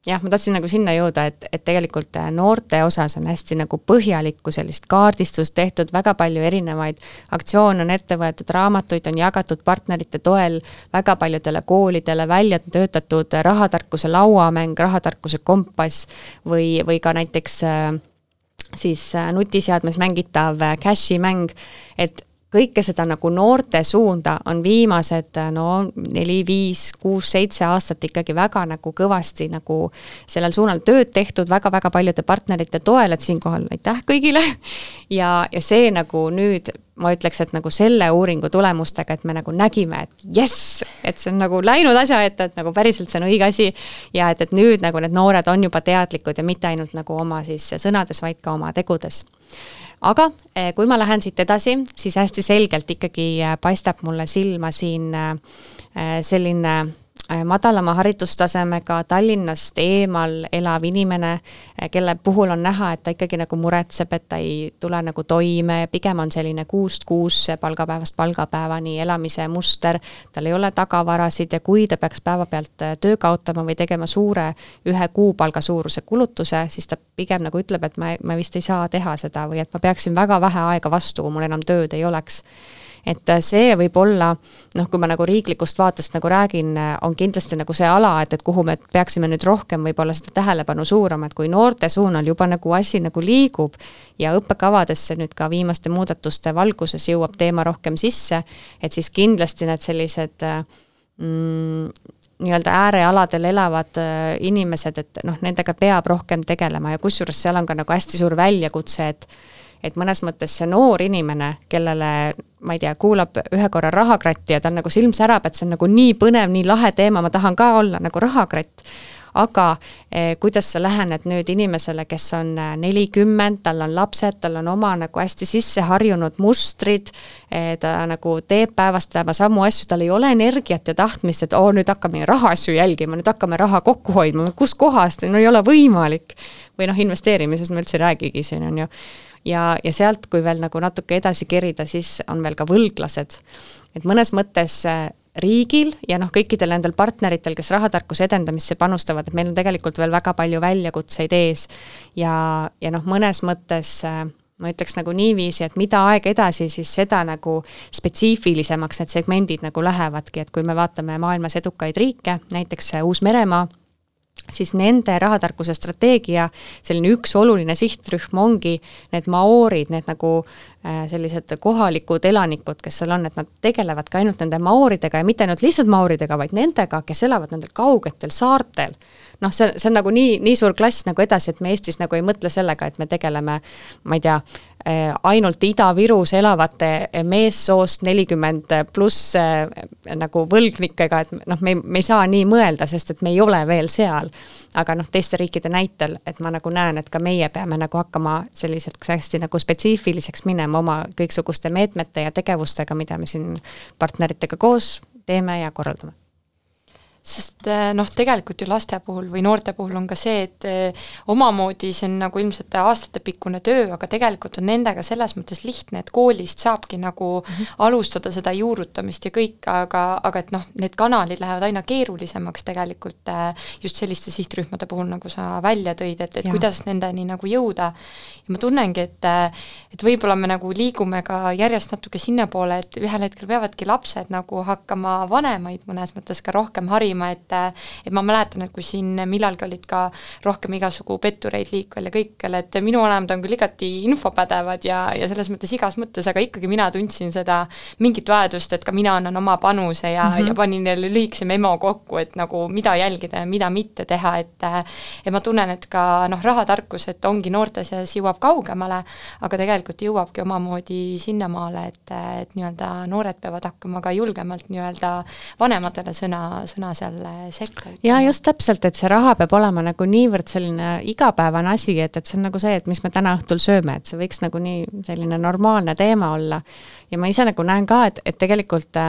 jah, ma tahtsin nagu sinna jõuda, et tegelikult noorte osas on hästi nagu põhjalikku sellist kaardistust tehtud, väga palju erinevaid aktsioone on ette võetud, raamatuid on jagatud partnerite toel väga paljudele koolidele, välja töötatud rahatarkuse lauamäng, rahatarkuse kompass või ka näiteks siis nutiseadmes mängitav cashi mäng, et kõike seda nagu noorte suunda on viimased 4, 5, 6, 7 aastat ikkagi väga nagu kõvasti nagu sellel suunal tööd tehtud väga-väga paljude partnerite toel, et siinkohal aitäh kõigile ja see nagu nüüd ma ütleks, et nagu selle uuringu tulemustega, et me nagu nägime, et jess, et see on nagu läinud asja ette, et nagu päriselt see on õige asi ja et nüüd nagu need noored on juba teadlikud ja mitte ainult nagu oma siis sõnades, vaid ka oma tegudes. Aga kui ma lähen siit edasi, siis hästi selgelt ikkagi paistab mulle silma siin selline madalama haridustasemega Tallinnast eemal elav inimene, kelle puhul on näha, et ta ikkagi nagu muretseb, et ta ei tule nagu toime, pigem on selline 6 palgapäevast palgapäevani elamise muster, tal ei ole tagavarasid ja kui ta peaks päeva pealt töö kaotama või tegema suure 1 kuupalga suuruse kulutuse, siis ta pigem nagu ütleb, et ma vist ei saa teha seda või et ma peaksin väga vähe aega vastu, kui mul enam tööd ei oleks. Et see võib olla, kui ma nagu riiklikust vaatest nagu räägin, on kindlasti nagu see ala, et kuhu me peaksime nüüd rohkem võib-olla seda tähelepanu suurama, et kui noorte suunal juba nagu asi nagu liigub ja õppekavadesse nüüd ka viimaste muudatuste valguses jõuab teema rohkem sisse, et siis kindlasti need sellised nii-öelda äärealadel elavad inimesed, et nendega peab rohkem tegelema ja kusjuures seal on ka nagu hästi suur väljakutse, et mõnes mõttes see noor inimene, kellele, ma ei tea, kuulab ühe korra rahakratti ja tal nagu silm särab, et see on nagu nii põnev, nii lahe teema, ma tahan ka olla nagu rahakratt. Aga kuidas sa lähened nüüd inimesele, kes on 40, tal on lapsed, tal on oma nagu hästi sisse harjunud mustrid, ta nagu teeb päevast päeva samu asju, tal ei ole energiat ja tahtmist, et nüüd hakkame rahaasju jälgima, nüüd hakkame raha kokku hoidma, kus kohast, ei ole võimalik. Või investeerimises me üldse räägigi siin on ju. Ja sealt, kui veel nagu natuke edasi kerida, siis on veel ka võlglased. Et mõnes mõttes riigil ja kõikidel nendel partneritel, kes rahatarkuse edendamisse panustavad, et meil on tegelikult veel väga palju väljakutseid ees ja mõnes mõttes ma ütleks nagu niiviisi, et mida aeg edasi, siis seda nagu spetsiifilisemaks need segmendid nagu lähevadki, et kui me vaatame maailmas edukaid riike, näiteks Uus-Meremaa, siis nende rahatarkuse strateegia selline üks oluline sihtrühm ongi need maoorid, need nagu sellised kohalikud elanikud, kes seal on, et nad tegelevad ka ainult nende maooridega ja mitte ainult lihtsalt maooridega, vaid nendega, kes elavad nendel kaugetel saartel. See on nagu nii suur klass nagu edasi, et me Eestis nagu ei mõtle sellega, et me tegeleme, ma ei tea, ainult Ida-Virus elavate meessoost 40 pluss nagu võlgnikega, et me ei saa nii mõelda, sest et me ei ole veel seal. Aga teiste riikide näitel, et ma nagu näen, et ka meie peame nagu hakkama selliseks hästi nagu spetsiifiliseks minema oma kõiksuguste meetmete ja tegevustega, mida me siin partneritega koos teeme ja korraldame. Sest tegelikult ju laste puhul või noorte puhul on ka see, et omamoodi see on nagu ilmselt aastatepikkune töö, aga tegelikult on nendega selles mõttes lihtne, et koolist saabki nagu alustada seda juurutamist ja kõik, aga et need kanalid lähevad aina keerulisemaks tegelikult just selliste sihtrühmade puhul, nagu sa välja tõid, et kuidas nendeni nagu jõuda. Ja ma tunnengi, et võib-olla me nagu liigume ka järjest natuke sinna poole, et ühel hetkel peavadki lapsed nagu hakkama vanemaid mõnes mõttes ka rohkem harima jälgima, et ma mäletan, et kui siin millalgi olid ka rohkem igasugu pettureid liikvel ja kõikjal, et minu vanemad on küll igati infopädevad ja selles mõttes igas mõttes, aga ikkagi mina tundsin seda mingit vajadust, et ka mina annan oma panuse ja panin jälle lühikese memo kokku, et nagu mida jälgida ja mida mitte teha, et ma tunnen, et ka rahatarkus, et ongi noorte seas jõuab kaugemale, aga tegelikult jõuabki omamoodi sinnamaale, et nii-öelda noored peavad hakkama ka julgemalt nii-öelda vanematele sõna seal sekka. Ja just täpselt, et see raha peab olema nagu niivõrd selline igapäevane asi, et see on nagu see, et mis me täna õhtul sööme, et see võiks nagu nii selline normaalne teema olla. Ja ma ise nagu näen ka, et tegelikult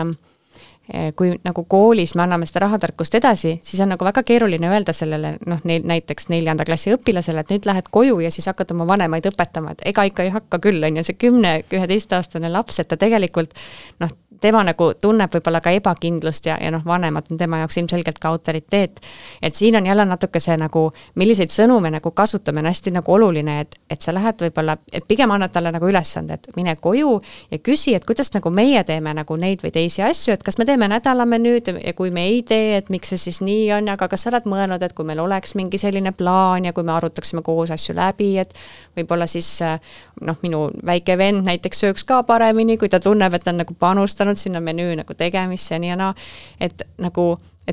kui nagu koolis me anname seda rahatarkust edasi, siis on nagu väga keeruline öelda sellele, näiteks 4. klassi õpilasele, et nüüd lähed koju ja siis hakkad oma vanemaid õpetama, et ega ikka ei hakka küll, on ju see 10-11-aastane laps, et ta tegelikult tema nagu tunneb võib-olla ka ebakindlust ja vanemad on tema jaoks ilmselgelt ka autoriteet. Et siin on jälle natuke see nagu, milliseid sõnu me nagu kasutame, on hästi nagu oluline, et sa lähed võib-olla, et pigem annad talle nagu ülesande, et mine koju ja küsi, et kuidas nagu meie teeme nagu neid või teisi asju, et kas me teeme nädalamenüüd ja kui me ei tee, et miks see siis nii on, aga kas sa oled mõelnud, et kui meil oleks mingi selline plaan ja kui me arutaksime koos asju läbi, et võib-olla siis minu väike vend näiteks sööks ka paremini, kui ta tunneb, et ta on nagu panustanud sinna menüü nagu tegemisse ja nii ja naa, et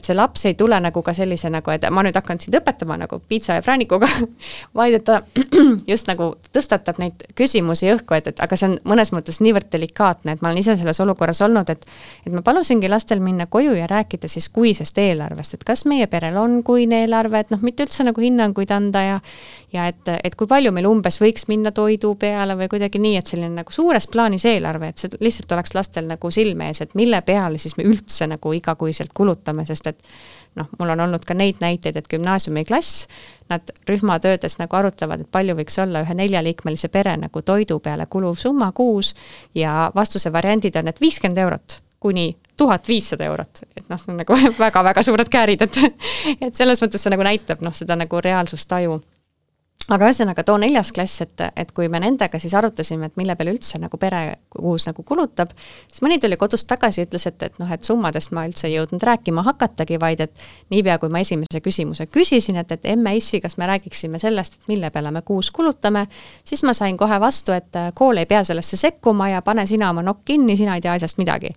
see laps ei tule nagu ka sellise nagu, et ma nüüd hakkan sind õpetama nagu piitsa ja präänikuga, vaid et ta just nagu tõstatab neid küsimusi õhku, et aga see on mõnes mõttes niivõrd delikaatne, et ma olen ise selles olukorras olnud, et ma palusingi lastel minna koju ja rääkida siis kuisest eelarvest, et kas meie perel on kuine eelarve, et mitte üldse nagu hinnanguid anda ja et kui palju meil umbes võiks minna toidu peale või kuidagi nii, et selline nagu suures plaanis eelarve, et see lihtsalt oleks lastel nagu silme ees, et mille peale siis me üldse nagu igakuiselt kulutame, sest et mul on olnud ka neid näiteid, et gümnaasiumiklass, nad rühmatöödes nagu arutavad, et palju võiks olla ühe 4-liikmelise pere nagu toidu peale kuluv summa kuus ja vastuse variandid on, et 50 eurot kuni 1500 eurot, et nagu väga-väga suured käärid, et selles mõttes see nagu näitab seda nagu reaalsustaju. Aga ühesõnaga too 4. klass, et kui me nendega siis arutasime, et mille peale üldse nagu pere kuus nagu kulutab, siis mõni tuli kodust tagasi ja ütles, et summadest ma üldse ei jõudnud rääkima hakatagi, vaid et niipea kui ma esimese küsimuse küsisin, et emme issi, kas me räägiksime sellest, et mille peale me kuus kulutame, siis ma sain kohe vastu, et kool ei pea sellesse sekkuma ja pane sina oma nokk kinni, sina ei tea asjast midagi.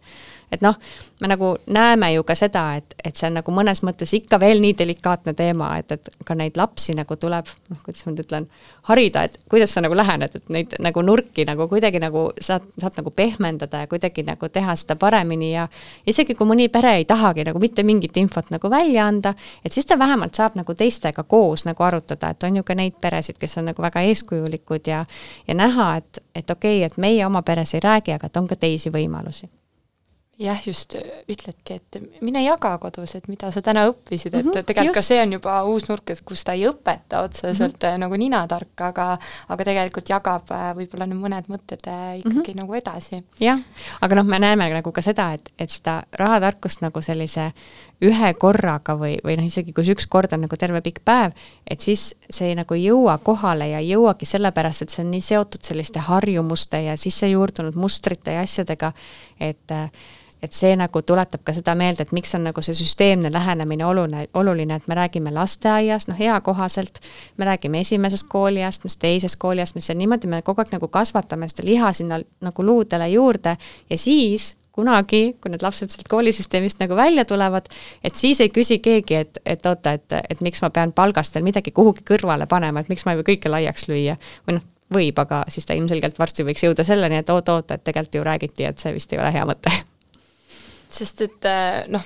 Et me nagu näeme ju ka seda, et see on nagu mõnes mõttes ikka veel nii delikaatne teema, et ka neid lapsi nagu tuleb, kuidas ma nüüd ütlen, harida, et kuidas sa nagu lähened, et neid nagu nurki nagu kuidagi nagu saab nagu pehmendada ja kuidagi nagu teha seda paremini ja isegi kui mõni pere ei tahagi nagu mitte mingit infot nagu välja anda, et siis ta vähemalt saab nagu teistega koos nagu arutada, et on ju ka neid peresid, kes on nagu väga eeskujulikud ja näha, et okei, et meie oma peres ei räägi, aga et on ka teisi võimalusi. Jah, just ütledki, et mine jaga kodus, et mida sa täna õppisid, et tegelikult ka see on juba uus nurk, et kus ta ei õpeta otseselt nagu ninatark, aga tegelikult jagab võib-olla mõned mõtted ikkagi nagu edasi. Jah, aga me näeme nagu ka seda, et seda rahatarkust nagu sellise ühe korraga või isegi kus üks kord on nagu terve pikk päev, et siis see nagu ei jõua kohale ja ei jõuagi sellepärast, et see on nii seotud selliste harjumuste ja sisse juurdunud mustrite ja asjadega, et see nagu tuletab ka seda meelde, et miks on nagu see süsteemne lähenemine oluline, et me räägime lasteaiast, hea kohaselt, me räägime esimesest kooliast, mis teisest kooliast, mis on niimoodi, me kogu aeg nagu kasvatame seda liha sinna nagu luudele juurde ja siis kunagi, kui need lapsed sealt koolisüsteemist nagu välja tulevad, et siis ei küsi keegi, et oota, et miks ma pean palgast veel midagi kuhugi kõrvale panema, et miks ma ei või kõike laiaks lüüa või võib, aga siis ta ilmselgelt varsti võiks jõuda selleni, et oota, et tegelikult ju räägiti, et see vist ei ole hea mõte. Sest et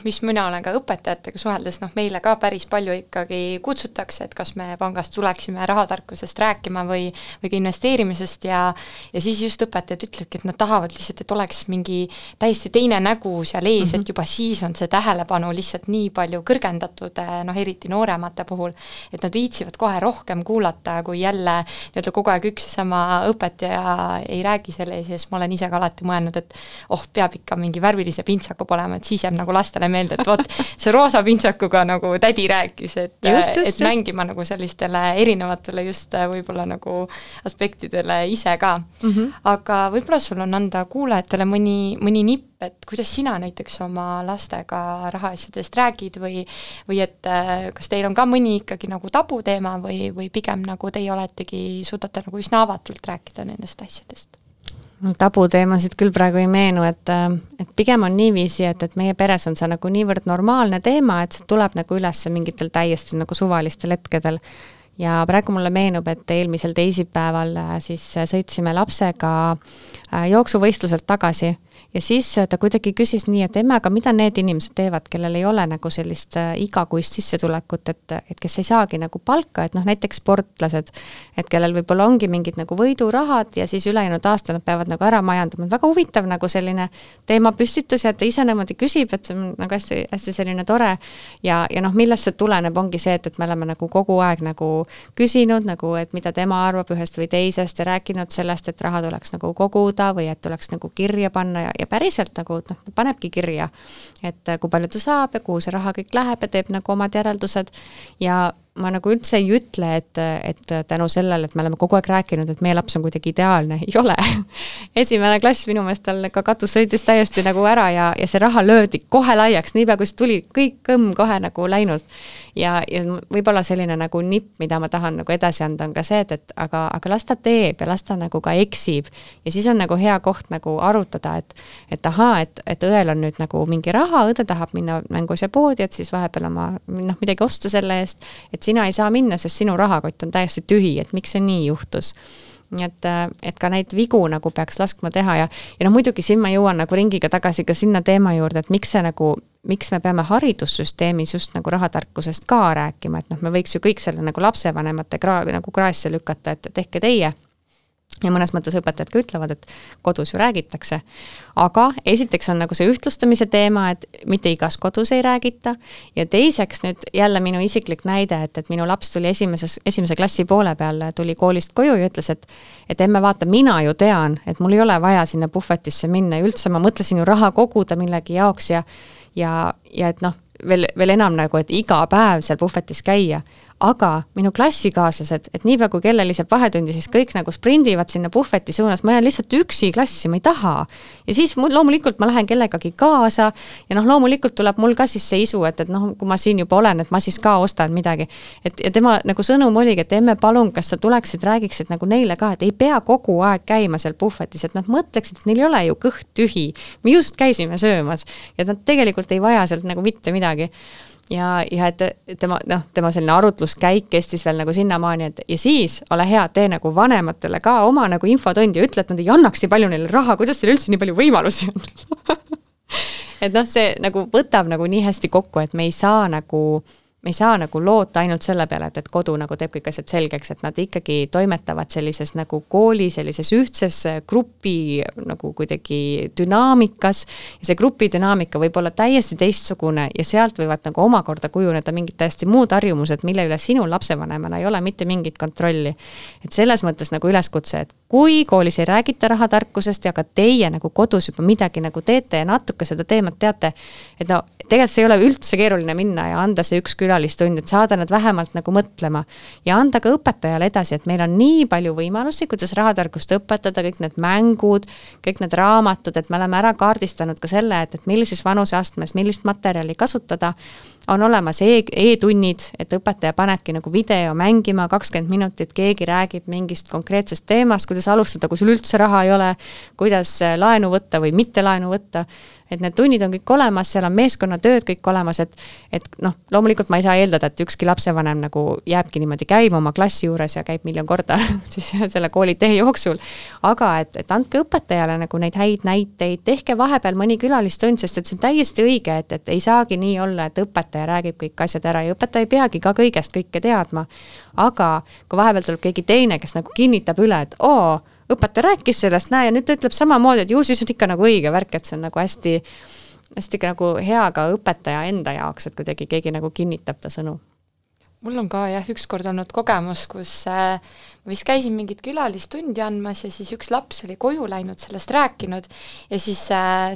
mis mina olen ka õpetajatega suheldes, meile ka päris palju ikkagi kutsutakse, et kas me pangast tuleksime rahatarkusest rääkima või ka investeerimisest ja siis just õpetajad ütlevadki, et nad tahavad lihtsalt, et oleks mingi täiesti teine nägu seal ees, et juba siis on see tähelepanu lihtsalt nii palju kõrgendatud, eriti nooremate puhul, et nad viitsivad kohe rohkem kuulata, kui jälle kogu aeg üks ja sama õpetaja ei räägi selle ees ja siis ma olen ise ka alati mõelnud, et peab ikka mingi värvilise pintsaku olema, et siis jääb nagu lastele meelde, et vot see roosa pintsakuga nagu tädi rääkis, et mängima nagu sellistele erinevatele just võib-olla nagu aspektidele ise ka. Aga võib-olla sul on anda kuulajatele mõni nipp et kuidas sina näiteks oma lastega rahaasjadest räägid või et kas teil on ka mõni ikkagi nagu tabuteema või pigem nagu teie oletegi, suudate nagu üsna avatult rääkida nendest asjadest? Tabuteemasid küll praegu ei meenu, et pigem on niiviisi, et meie peres on see nagu niivõrd normaalne teema, et see tuleb nagu üles mingitel täiesti nagu suvalistel hetkedel. Ja praegu mulle meenub, et eelmisel teisipäeval siis sõitsime lapsega jooksuvõistluselt tagasi ja siis ta kuidagi küsis nii, et emme, aga mida need inimesed teevad, kellel ei ole nagu sellist igakuist sissetulekut, et kes ei saagi nagu palka, et noh, näiteks sportlased, et kellel võib-olla ongi mingid nagu võidurahad ja siis ülejäänud aasta nad peavad nagu ära majandama. Väga huvitav nagu selline teema püstitus ja ta ise niimoodi küsib, et see on nagu hästi, hästi selline tore ja noh, millest see tuleneb, ongi see, et me oleme nagu kogu aeg nagu küsinud, nagu, et mida tema arvab ühest või teisest ja rääkinud sellest, et raha tuleks nagu koguda või et tuleks nagu kirja panna ja päriselt nagu panebki kirja, et kui palju ta saab ja kuhu see raha kõik läheb ja teeb nagu omad järeldused ja ma nagu üldse ei ütle, et tänu sellele, et me oleme kogu aeg rääkinud, et meie laps on kuidagi ideaalne, ei ole. Esimene klass minu meelest tal ka katus sõitis täiesti nagu ära ja see raha löödi kohe laiaks, niipea kui see tuli, kõik kõmm kohe nagu läinud. Ja võib-olla selline nagu nipp, mida ma tahan nagu edasi anda, on ka see, et aga las ta teeb ja las ta nagu ka eksib. Ja siis on nagu hea koht nagu arutada, et ahaa, et õel on nüüd nagu mingi raha, õde tahab minna mängus ja poodi, et siis vahepeal oma midagi osta selle eest, et sina ei saa minna, sest sinu rahakott on täiesti tühi, et miks see nii juhtus. Et ka neid vigu nagu peaks laskma teha ja no muidugi siin ma jõuan nagu ringiga tagasi ka sinna teema juurde, et miks me peame haridussüsteemis just nagu rahatarkusest ka rääkima, et noh, me võiks ju kõik selle nagu lapsevanemate nagu kraesse lükata, et tehke teie. Ja mõnes mõttes õpetajad ka ütlevad, et kodus ju räägitakse. Aga esiteks on nagu see ühtlustamise teema, et mitte igas kodus ei räägita. Ja teiseks nüüd jälle minu isiklik näide, et minu laps tuli esimese klassi poole peal, tuli koolist koju ja ütles, et emme vaata, mina ju tean, et mul ei ole vaja sinna puhvetisse minna. Ja üldse ma mõtlesin ju raha koguda millegi jaoks ja et noh, veel enam nagu, et iga päev seal puhvetis käia. Aga minu klassikaaslased, et niipea kui kellel lisab vahetundi, siis kõik nagu sprindivad sinna puhveti suunas, ma jään lihtsalt üksi klassi, ma ei taha. Ja siis loomulikult ma lähen kellegagi kaasa ja noh, loomulikult tuleb mul ka siis see isu, et noh, kui ma siin juba olen, et ma siis ka ostan midagi. Ja tema nagu sõnum oligi, et emme palun, kas sa tuleksid, räägiksid nagu neile ka, et ei pea kogu aeg käima seal puhvetis, et nad mõtleksid, et neil ei ole ju kõht tühi. Me just käisime söömas ja nad tegelikult ei vaja sealt nagu mitte midagi. Ja et tema selline arutluskäik kestis veel nagu sinnamaani, et ja siis ole hea, tee nagu vanematele ka oma nagu infotundi ja ütle, et nad ei annaks nii palju neile raha, kuidas teil üldse nii palju võimalusi on. Et noh, see nagu võtab nagu nii hästi kokku, et me ei saa nagu loota ainult selle peale, et kodu nagu teeb kõik asjad selgeks, et nad ikkagi toimetavad sellises nagu kooli, sellises ühtses grupi nagu kuidagi dünaamikas ja see grupi dünaamika võib olla täiesti teistsugune ja sealt võivad nagu omakorda kujuneda mingid täiesti muud harjumused, mille üle sinul lapsevanemana ei ole mitte mingit kontrolli. Et selles mõttes nagu üleskutse, et kui koolis ei räägita rahatarkusest ja ka teie nagu kodus juba midagi nagu teete ja natuke seda teemat teate, et no tegelikult see ei ole üldse keeruline minna ja anda see üks külalistund, et saada nad vähemalt nagu mõtlema ja anda ka õpetajale edasi, et meil on nii palju võimalusi, kuidas rahatarkust õpetada, kõik need mängud, kõik need raamatud, et me oleme ära kaardistanud ka selle, et millises vanuseastmes, millist materjali kasutada, on olemas e-tunnid, et õpetaja panebki nagu video mängima 20 minutit, keegi räägib mingist konkreetsest teemast, kuidas alustada, kui sul üldse raha ei ole, kuidas laenu võtta või mitte laenu võtta. Et need tunnid on kõik olemas, seal on meeskonnatööd kõik olemas, et noh, loomulikult ma ei saa eeldada, et ükski lapsevanem nagu jääbki niimoodi käima oma klassi juures ja käib miljon korda siis selle kooli tee jooksul. Aga et andke õpetajale nagu neid häid näiteid, tehke vahepeal mõni külalistund, sest et see on täiesti õige, et ei saagi nii olla, et õpetaja räägib kõik asjad ära ja õpetaja ei peagi ka kõigest kõike teadma. Aga kui vahepeal tuleb keegi teine, kes nagu kinnitab üle, et õpetaja rääkis sellest, näe, ja nüüd ta ütleb samamoodi, et ju siis on ikka nagu õige värk, et see on nagu hästi nagu hea ka õpetaja enda jaoks, et kuidagi keegi nagu kinnitab ta sõnu. mul on ka jah, ükskord olnud kogemus, kus ma vist käisin mingit külalistundi andmas ja siis üks laps oli koju läinud, sellest rääkinud ja siis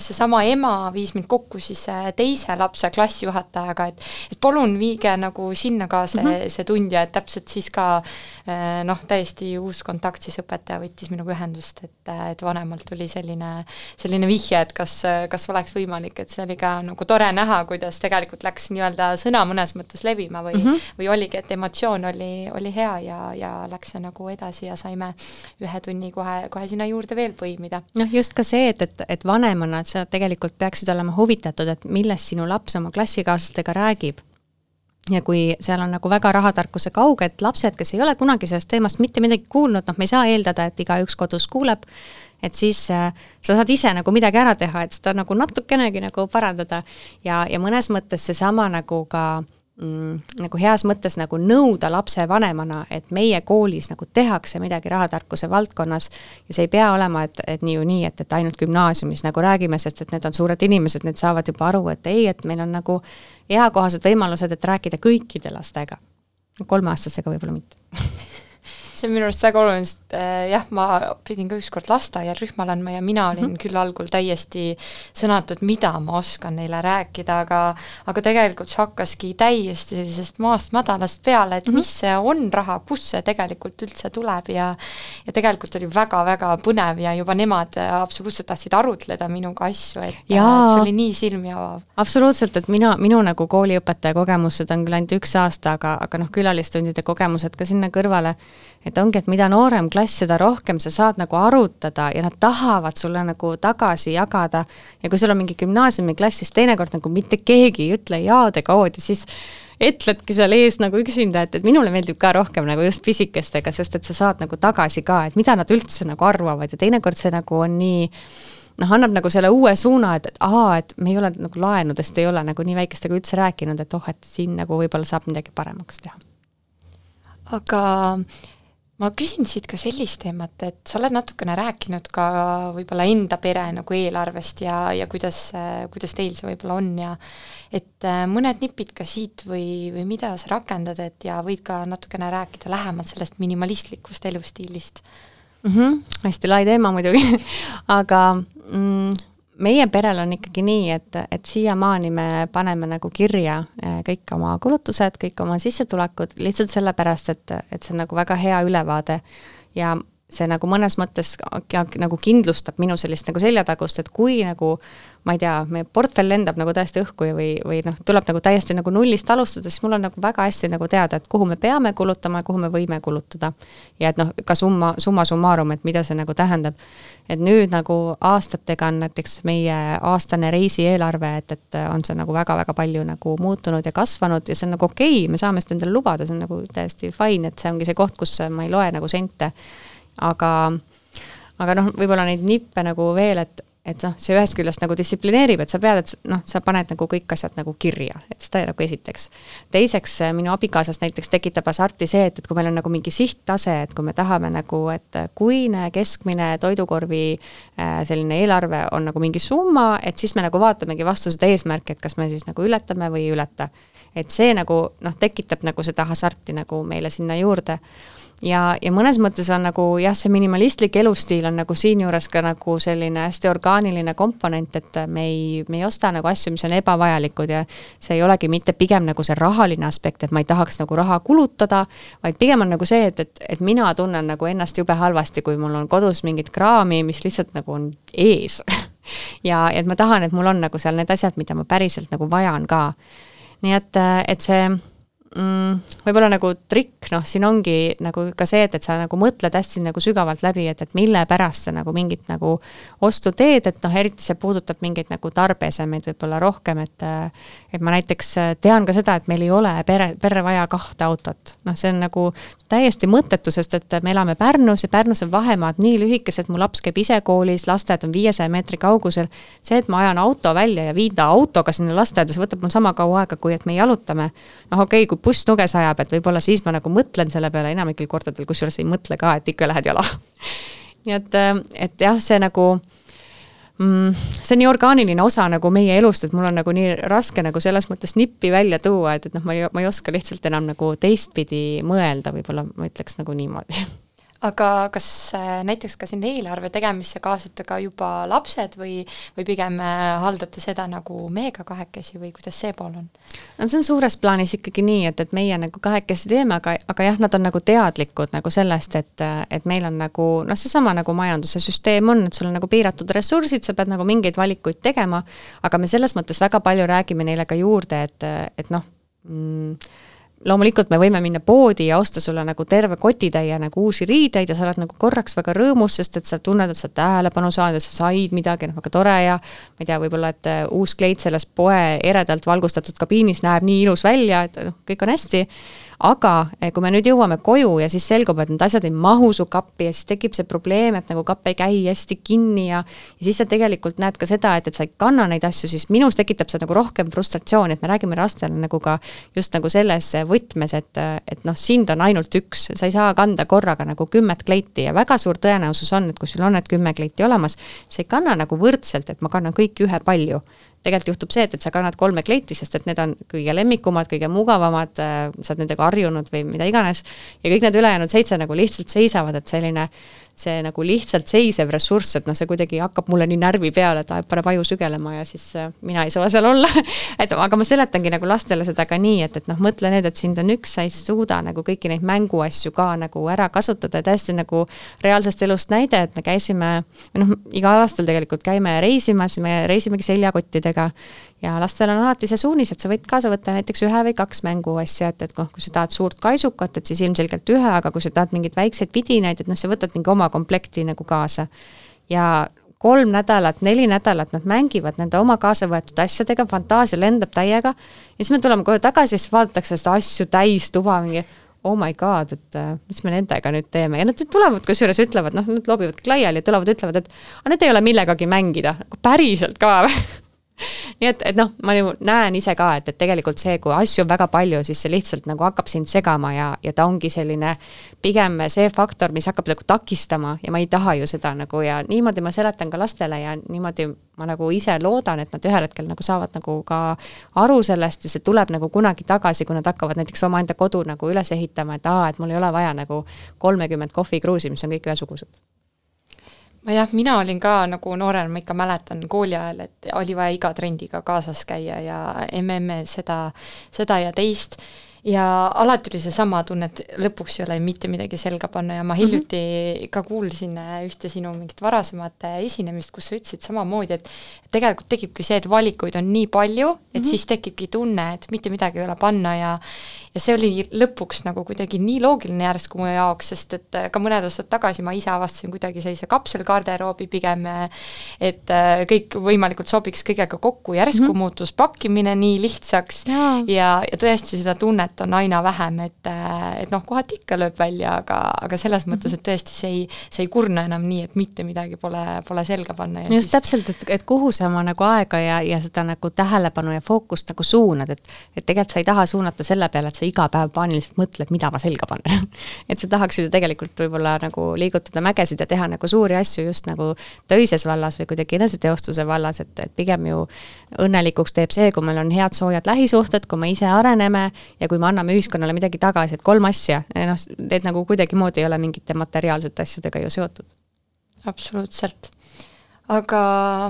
seesama ema viis mind kokku siis teise lapse klassijuhatajaga, et palun viige nagu sinna ka see tund ja et täpselt siis ka täiesti uus kontakt, siis õpetaja võttis minuga ühendust, et vanemalt tuli selline vihje, et kas oleks võimalik, et see oli ka nagu tore näha, kuidas tegelikult läks nii-öelda sõna mõnes mõttes levima või oligi, et emotsioon oli hea ja läks see nagu edasi ja saime ühe tunni kohe sinna juurde veel põimida. Just ka see, et vanemana, et sa tegelikult peaksid olema huvitatud, et millest sinu laps oma klassikaaslastega räägib. Ja kui seal on nagu väga rahatarkuse kauge, et lapsed, kes ei ole kunagi sellest teemast mitte midagi kuulnud, me ei saa eeldada, et igaüks kodus kuuleb, et siis sa saad ise nagu midagi ära teha, et seda nagu natukenegi nagu parandada ja mõnes mõttes seesama nagu ka nagu heas mõttes nagu nõuda lapse vanemana, et meie koolis nagu tehakse midagi rahatarkuse valdkonnas ja see ei pea olema, et nii, et ainult gümnaasiumis nagu räägime, sest et need on suured inimesed, need saavad juba aru, et ei, et meil on nagu eakohased võimalused, et rääkida kõikide lastega. 3-aastasega võib-olla mitte. See on minu arust väga oluline, sest jah, ma pidin ka ükskord lasteaial rühmal andma ja mina olin küll algul täiesti sõnatud, mida ma oskan neile rääkida, aga tegelikult see hakkaski täiesti sellisest maast madalast peale, et mis see on raha, kus see tegelikult üldse tuleb ja tegelikult oli väga-väga põnev ja juba nemad absoluutselt tahtsid arutleda minuga asju, et see oli nii silmi avav. Absoluutselt, et minu nagu kooliõpetaja kogemused on küll ainult 1 aasta, aga külalistundide kogemused ka sinna kõrvale, et ongi, et mida noorem klass, seda rohkem sa saad nagu arutada ja nad tahavad sulle nagu tagasi jagada ja kui sul on mingi gümnaasiumiklass, siis teinekord nagu mitte keegi ei ütle jaade koodi, siis ütledki seal ees nagu üksinda, et minule meeldib ka rohkem nagu just pisikestega, sest et sa saad nagu tagasi ka, et mida nad üldse nagu arvavad ja teinekord see nagu on nii annab nagu selle uue suuna, et me ei ole nagu laenudest, ei ole nagu nii väikestega üldse rääkinud, et et siin nagu võib-olla saab midagi paremaks teha. Aga ma küsin siit ka sellist teemat, et sa oled natukene rääkinud ka võib-olla enda pere nagu eelarvest ja kuidas teil see võib-olla on ja et mõned nipid ka siit või mida sa rakendad, et ja võid ka natukene rääkida lähemalt sellest minimalistlikust elustiilist. Hästi lai teema muidugi, aga meie perel on ikkagi nii, et siiamaani me paneme nagu kirja kõik oma kulutused, kõik oma sissetulekud, lihtsalt sellepärast, et see on nagu väga hea ülevaade ja see nagu mõnes mõttes nagu kindlustab minu sellist nagu seljatagust, et kui nagu, ma ei tea, meie portfell lendab nagu täiesti õhku või tuleb nagu täiesti nagu nullist alustada, siis mul on nagu väga hästi nagu teada, et kuhu me peame kulutama ja kuhu me võime kulutada. Ja et ka summa summarum, et mida see nagu tähendab. Et nüüd nagu aastatega on näiteks meie aastane reisieelarve, et on see nagu väga-väga palju nagu muutunud ja kasvanud ja see on nagu okei, me saame seda endale lubada, see on nagu täiesti fine, et see ongi see koht, kus ma ei loe nagu sente. Aga võib-olla neid nippe nagu veel, et see ühest küljest nagu distsiplineerib, et sa pead, et sa paned nagu kõik asjad nagu kirja, et seda nagu esiteks. Teiseks, minu abikaasas näiteks tekitab hasarti see, et kui meil on nagu mingi sihttase, et kui me tahame nagu, et kuine keskmine toidukorvi selline eelarve on nagu mingi summa, et siis me nagu vaatamegi vastu seda eesmärki, et kas me siis nagu ületame või ei ületa. Et see nagu tekitab nagu seda hasarti nagu meile sinna juurde. Ja mõnes mõttes on nagu, see minimalistlik elustiil on nagu siin juures ka nagu selline hästi orgaaniline komponent, et me ei osta nagu asju, mis on ebavajalikud ja see ei olegi mitte pigem nagu see rahaline aspekt, et ma ei tahaks nagu raha kulutada, vaid pigem on nagu see, et mina tunnen nagu ennast jube halvasti, kui mul on kodus mingit kraami, mis lihtsalt nagu on ees. ja et ma tahan, et mul on nagu seal need asjad, mida ma päriselt nagu vajan ka. Nii et see võib-olla nagu trikk, siin ongi nagu ka see, et sa nagu mõtled hästi nagu sügavalt läbi, et mille pärast sa nagu mingit nagu ostu teed, et eriti see puudutab mingeid nagu tarbesemeid võib-olla rohkem, et ma näiteks tean ka seda, et meil ei ole perre vaja 2 autot. See on nagu täiesti mõttetu, sest et me elame Pärnus ja Pärnus on vahemaad nii lühikesed, mu laps käib ise koolis, lasteaed on 500 meetri kaugusel. See, et ma ajan auto välja ja viin ta autoga sinna lasteaeda, see võtab mul sama kaua aega, kui et me jalutame. Okei, kui buss nuge sajab, et võib-olla siis ma nagu mõtlen selle peale enamikil kordadel, kus juures ei mõtle ka, et ikka lähed jala. Nii et jah, see nagu See on nii orgaaniline osa nagu meie elust, et mul on nagu nii raske nagu selles mõttes nippi välja tuua, et noh, ma ei oska lihtsalt enam nagu teistpidi mõelda, võib-olla ma ütleks nagu niimoodi. Aga kas näiteks ka siin eelarve tegemisse kaasate ka juba lapsed või pigem haldate seda nagu meiega kahekesi või kuidas see pool on? See on suures plaanis ikkagi nii, et meie nagu kahekesi teeme, aga jah, nad on nagu teadlikud nagu sellest, et meil on nagu, noh, seesama nagu majanduse süsteem on, et sul on nagu piiratud ressursid, sa pead nagu mingeid valikuid tegema, aga me selles mõttes väga palju räägime neile ka juurde, et noh, loomulikult me võime minna poodi ja osta sulle nagu terve kotitäie nagu uusi riideid ja sa oled nagu korraks väga rõõmus, sest et sa tunned, et sa tähelepanu saad, et sa said midagi, väga tore ja ma ei tea, võib-olla, et uus kleit selles poe eredalt valgustatud kabiinis näeb nii ilus välja, et kõik on hästi. Aga kui me nüüd jõuame koju ja siis selgub, et need asjad ei mahu su kappi ja siis tekib see probleem, et nagu kapp ei käi hästi kinni ja siis sa tegelikult näed ka seda, et sa ei kanna neid asju, siis minus tekitab see nagu rohkem frustratsiooni, et me räägime lastele nagu ka just nagu selles võtmes, et noh, sind on ainult üks, sa ei saa kanda korraga nagu 10 kleiti ja väga suur tõenäosus on, et kui sul on need 10 kleiti olemas, sa ei kanna nagu võrdselt, et ma kannan kõik ühe palju. Tegelikult juhtub see, et sa kannad 3 kleiti, sest et need on kõige lemmikumad, kõige mugavamad, sa oled nendega harjunud või mida iganes ja kõik need ülejäänud 7 nagu lihtsalt seisavad, et selline see nagu lihtsalt seisev ressurss, et noh, see kuidagi hakkab mulle nii närvi peale, et paneb aju sügelema ja siis mina ei saa seal olla. Aga ma seletangi nagu lastele seda ka nii, et noh, mõtle nüüd, et sind on üks, sa ei suuda nagu kõiki neid mänguasju ka nagu ära kasutada ja täiesti nagu reaalsest elust näide, et me käisime, noh, igal aastal tegelikult käime reisimas, me reisimegi seljakottidega ja lastel on alati see suunis, et sa võid kaasa võtta näiteks 1 või 2 mänguasja, et kui sa tahad suurt kaisukat, et siis ilmselgelt 1, aga kui sa tahad mingeid väikseid vidinaid, et noh, sa võtad mingi oma komplekti nagu kaasa. Ja 3 nädalat, 4 nädalat nad mängivad nende oma kaasa võetud asjadega, fantaasia lendab täiega ja siis me tuleme kohe tagasi ja siis vaadatakse seda asju täis tuba mingi oh my god, et mis me nendega nüüd teeme. Ja nad tulevad kusjuures ütlevad, noh, nad loobivad laiali ja tulevad ütlevad, et need ei ole millegagi mängida. Päriselt ka või? Nii et noh, ma näen ise ka, et tegelikult see, kui asju on väga palju, siis see lihtsalt nagu hakkab sind segama ja ta ongi selline pigem see faktor, mis hakkab nagu takistama ja ma ei taha ju seda nagu ja niimoodi ma seletan ka lastele ja niimoodi ma nagu ise loodan, et nad ühel hetkel nagu saavad nagu ka aru sellest ja see tuleb nagu kunagi tagasi, kui nad hakkavad näiteks oma enda kodu nagu üles ehitama, et mul ei ole vaja nagu 30 kohvikruusi, mis on kõik ühesugused. Mina olin ka nagu noorena, ma ikka mäletan kooli ajal, et oli vaja iga trendiga kaasas käia ja seda ja teist ja alati oli see sama tunne, et lõpuks ei ole mitte midagi selga panna ja ma hiljuti ka kuulsin ühte sinu mingit varasemat esinemist, kus sa ütlesid samamoodi, et tegelikult tekibki see, et valikuid on nii palju, et siis tekibki tunne, et mitte midagi ei ole panna ja see oli lõpuks nagu kuidagi nii loogiline järsku mu jaoks, sest et ka mõned aastad tagasi ma ise avastasin kuidagi sellise kapselgarderoobi pigem, et kõik võimalikult sobiks kõigega kokku, järsku muutus pakkimine nii lihtsaks ja tõesti seda tunnet on aina vähem, et noh, kohati ikka lööb välja, aga selles mõttes, et tõesti see ei kurna enam nii, et mitte midagi pole selga panna. Ja just täpselt, et kuhu sa oma nagu aega ja seda nagu tähelepanu ja fookust nagu suunad, et tegelikult sa ei taha suunata selle peale, et sa iga päev paaniliselt mõtled, mida ma selga panen. Et sa tahaks ju tegelikult võib-olla nagu liigutada mägesid ja teha nagu suuri asju just nagu töises vallas või kuidagi eneseteostuse vallas, et pigem ju õnnelikuks teeb see, kui meil on head soojad lähisuhted, kui me ise areneme ja kui me anname ühiskonnale midagi tagasi, et 3 asja, noh, need nagu kuidagi moodi ei ole mingite materiaalsete asjadega ju seotud. Absoluutselt. Aga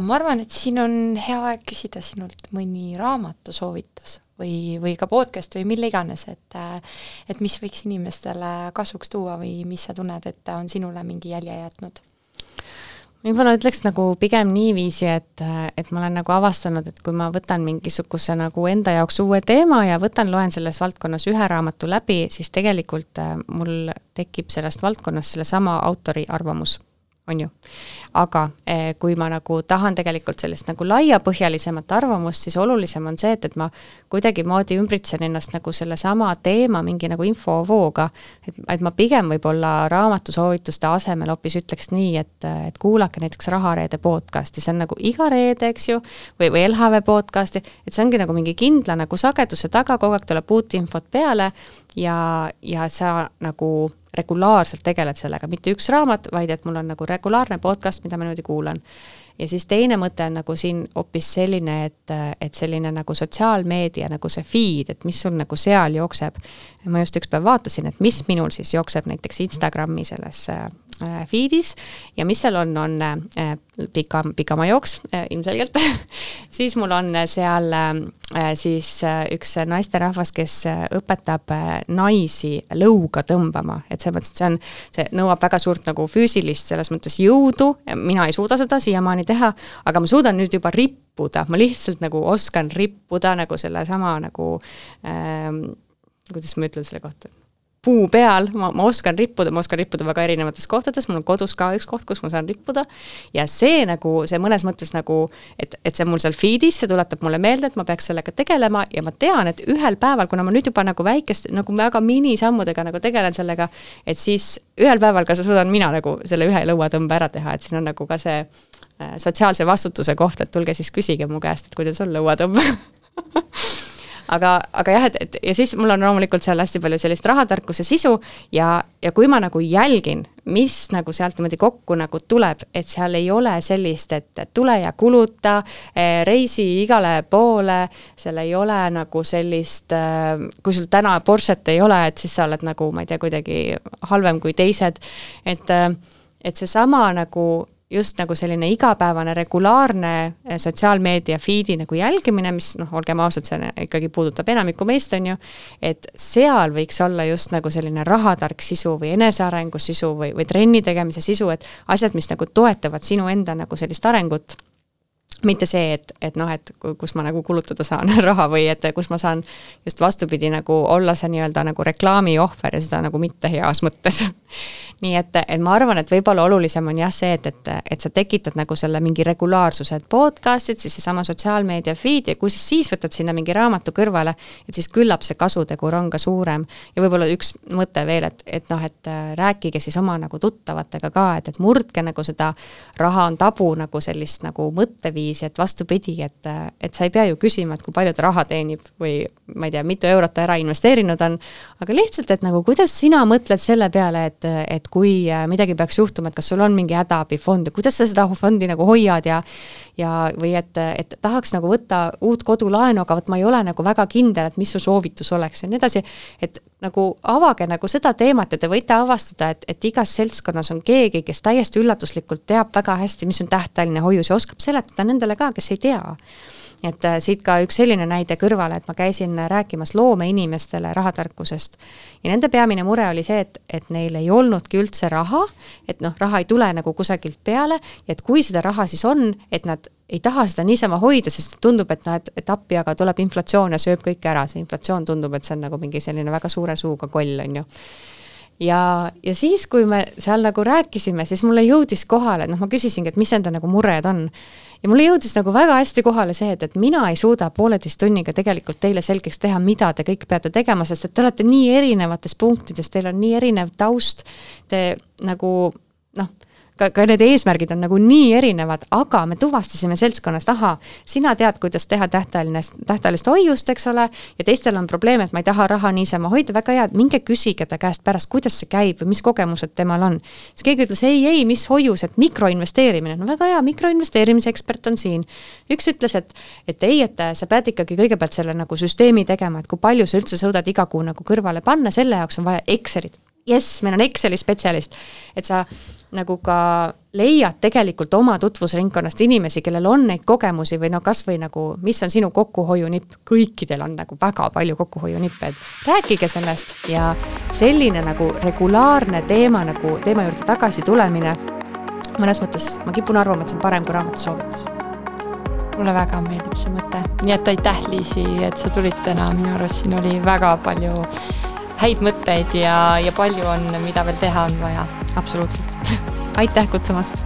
ma arvan, et siin on hea aeg küsida sinult mõni raamatu soovitus või ka podcast või mille iganes, et mis võiks inimestele kasuks tuua või mis sa tunned, et on sinule mingi jälje jätnud? Võib-olla ütleks nagu pigem niiviisi, et ma olen nagu avastanud, et kui ma võtan mingisuguse nagu enda jaoks uue teema ja loen selles valdkonnas 1 raamatu läbi, siis tegelikult mul tekib sellest valdkonnast selle sama autori arvamus. On ju. Aga kui ma nagu tahan tegelikult sellist nagu laiapõhjalisemat arvamust, siis olulisem on see, et ma kuidagi moodi ümbritsen ennast nagu selle sama teema mingi nagu infovooga, et ma pigem võib-olla raamatusoovituste asemel hoopis ütleks nii, et kuulake näiteks Rahareede podcasti, see on nagu iga reede, eks ju, või LHV podcasti, et see ongi nagu mingi kindla nagu sageduse taga, kogu aeg tuleb uut infot peale ja sa nagu regulaarselt tegeled sellega, mitte üks raamat, vaid et mul on nagu regulaarne podcast, mida ma niimoodi kuulan. Ja siis teine mõte on nagu siin hoopis selline, et selline nagu sotsiaalmeedia, nagu see feed, et mis sul nagu seal jookseb. Ma just üks päev vaatasin, et mis minul siis jookseb näiteks Instagrami selles feedis ja mis seal on pikama jooks ilmselgelt, siis mul on seal siis üks naisterahvas, kes õpetab naisi lõuga tõmbama, et see nõuab väga suurt nagu füüsilist selles mõttes jõudu, mina ei suuda seda siiamaani teha, aga ma suudan nüüd juba rippuda, ma lihtsalt nagu oskan rippuda nagu selle sama nagu kuidas ma ütlen selle kohta, puu peal, ma oskan rippuda väga erinevates kohtades, mul on kodus ka üks koht, kus ma saan rippuda ja see mõnes mõttes nagu, et see mul seal feedis, see tuletab mulle meelde, et ma peaks sellega tegelema ja ma tean, et ühel päeval, kuna ma nüüd juba nagu väikest, nagu väga minisammudega nagu tegelen sellega, et siis ühel päeval ka suudan mina nagu selle ühe lõuatõmbe ära teha, et siin on nagu ka see sotsiaalse vastutuse koht, et tulge siis küsige mu käest, et kuidas on lõuatõmbe aga jah, et ja siis mul on loomulikult seal hästi palju sellist rahatarkuse sisu ja kui ma nagu jälgin, mis nagu sealt niimoodi kokku nagu tuleb, et seal ei ole sellist, et tule ja kuluta, reisi igale poole, seal ei ole nagu sellist, kui sul täna Porschet ei ole, et siis sa oled nagu, ma ei tea, kuidagi halvem kui teised, et see sama nagu just nagu selline igapäevane regulaarne sotsiaalmeedia feedi nagu jälgimine, mis olgem ausad, see ikkagi puudutab enamikku meist, on ju, et seal võiks olla just nagu selline rahatark sisu või enesearengu sisu või trenni tegemise sisu, et asjad, mis nagu toetavad sinu enda nagu sellist arengut, mitte see, et kus ma nagu kulutada saan raha või et kus ma saan just vastupidi nagu olla see nii-öelda nagu reklaami ohver ja seda nagu mitte heas mõttes. Nii et ma arvan, et võib-olla olulisem on jah see, et sa tekitad nagu selle mingi regulaarsuse, et podcastid, siis sama sotsiaalmeedia feed ja kui siis võtad sinna mingi raamatu kõrvale, et siis küllap see kasutegur on ka suurem ja võib-olla üks mõte veel, et rääkige siis oma nagu tuttavatega ka, et murdke nagu seda raha on tabu nagu sellist nagu mõtteviisi, et vastupidi, et sa ei pea ju küsima, et kui palju ta raha teenib või ma ei tea, mitu eurot ta ära investeerinud on, aga lihtsalt, et nagu kuidas sina mõtled selle peale, et kui midagi peaks juhtuma, et kas sul on mingi hädaabifond ja kuidas sa seda fondi nagu hoiad või et tahaks nagu võtta uut kodulaenu, aga ma ei ole nagu väga kindel, et mis su soovitus oleks ja nii edasi, et nagu avage nagu seda teemat ja te võite avastada, et igas seltskonnas on keegi, kes täiesti üllatuslikult teab väga hästi, mis on tähtajaline hoius ja oskab seletada nendele ka, kes ei tea. Et siit ka üks selline näide kõrvale, et ma käisin rääkimas loomeinimestele rahatarkusest ja nende peamine mure oli see, et neil ei olnudki üldse raha, et raha ei tule nagu kusagilt peale ja et kui seda raha siis on, et nad ei taha seda niisama hoida, sest tundub, et appi, aga tuleb inflatsioon ja sööb kõik ära, see inflatsioon tundub, et see on nagu mingi selline väga suure suuga koll, on ju. Ja siis, kui me seal nagu rääkisime, siis mulle jõudis kohale, ma küsisingi, et mis enda nagu mured on. Ja mulle jõudis nagu väga hästi kohale see, et mina ei suuda 1,5 tunniga tegelikult teile selgeks teha, mida te kõik peate tegema, sest et te olete nii erinevates punktides, teil on nii erinev taust, te nagu, ka need eesmärgid on nagu nii erinevad, aga me tuvastasime seltskonnast, sina tead, kuidas teha tähtajalist hoiust, eks ole, ja teistel on probleem, et ma ei taha raha niisama hoida, väga hea, minge küsige ta käest pärast, kuidas see käib või mis kogemused temal on. Siis keegi ütles, ei, mis hoius, et mikroinvesteerimine, väga hea, mikroinvesteerimise ekspert on siin. Üks ütles, et sa pead ikkagi kõigepealt selle nagu süsteemi tegema, et kui palju sa üldse suudad iga kuu nagu kõrvale panna, selle jaoks on vaja Excelit. Yes, meil on Exceli spetsialist, et sa nagu ka leiad tegelikult oma tutvusringkonnast inimesi, kellel on neid kogemusi või kas või nagu, mis on sinu kokkuhoiunipp, kõikidel on nagu väga palju kokkuhoiunippe, et rääkige sellest ja selline nagu regulaarne teema juurde tagasi tulemine, mõnes mõttes ma kipun arvama, et see on parem kui raamatu soovitus. Mulle väga meeldib see mõte, nii et aitäh Liisi, et sa tulid täna, minu arust siin oli väga palju häid mõtteid ja palju on, mida veel teha on vaja. Absoluutselt. Aitäh kutsumast!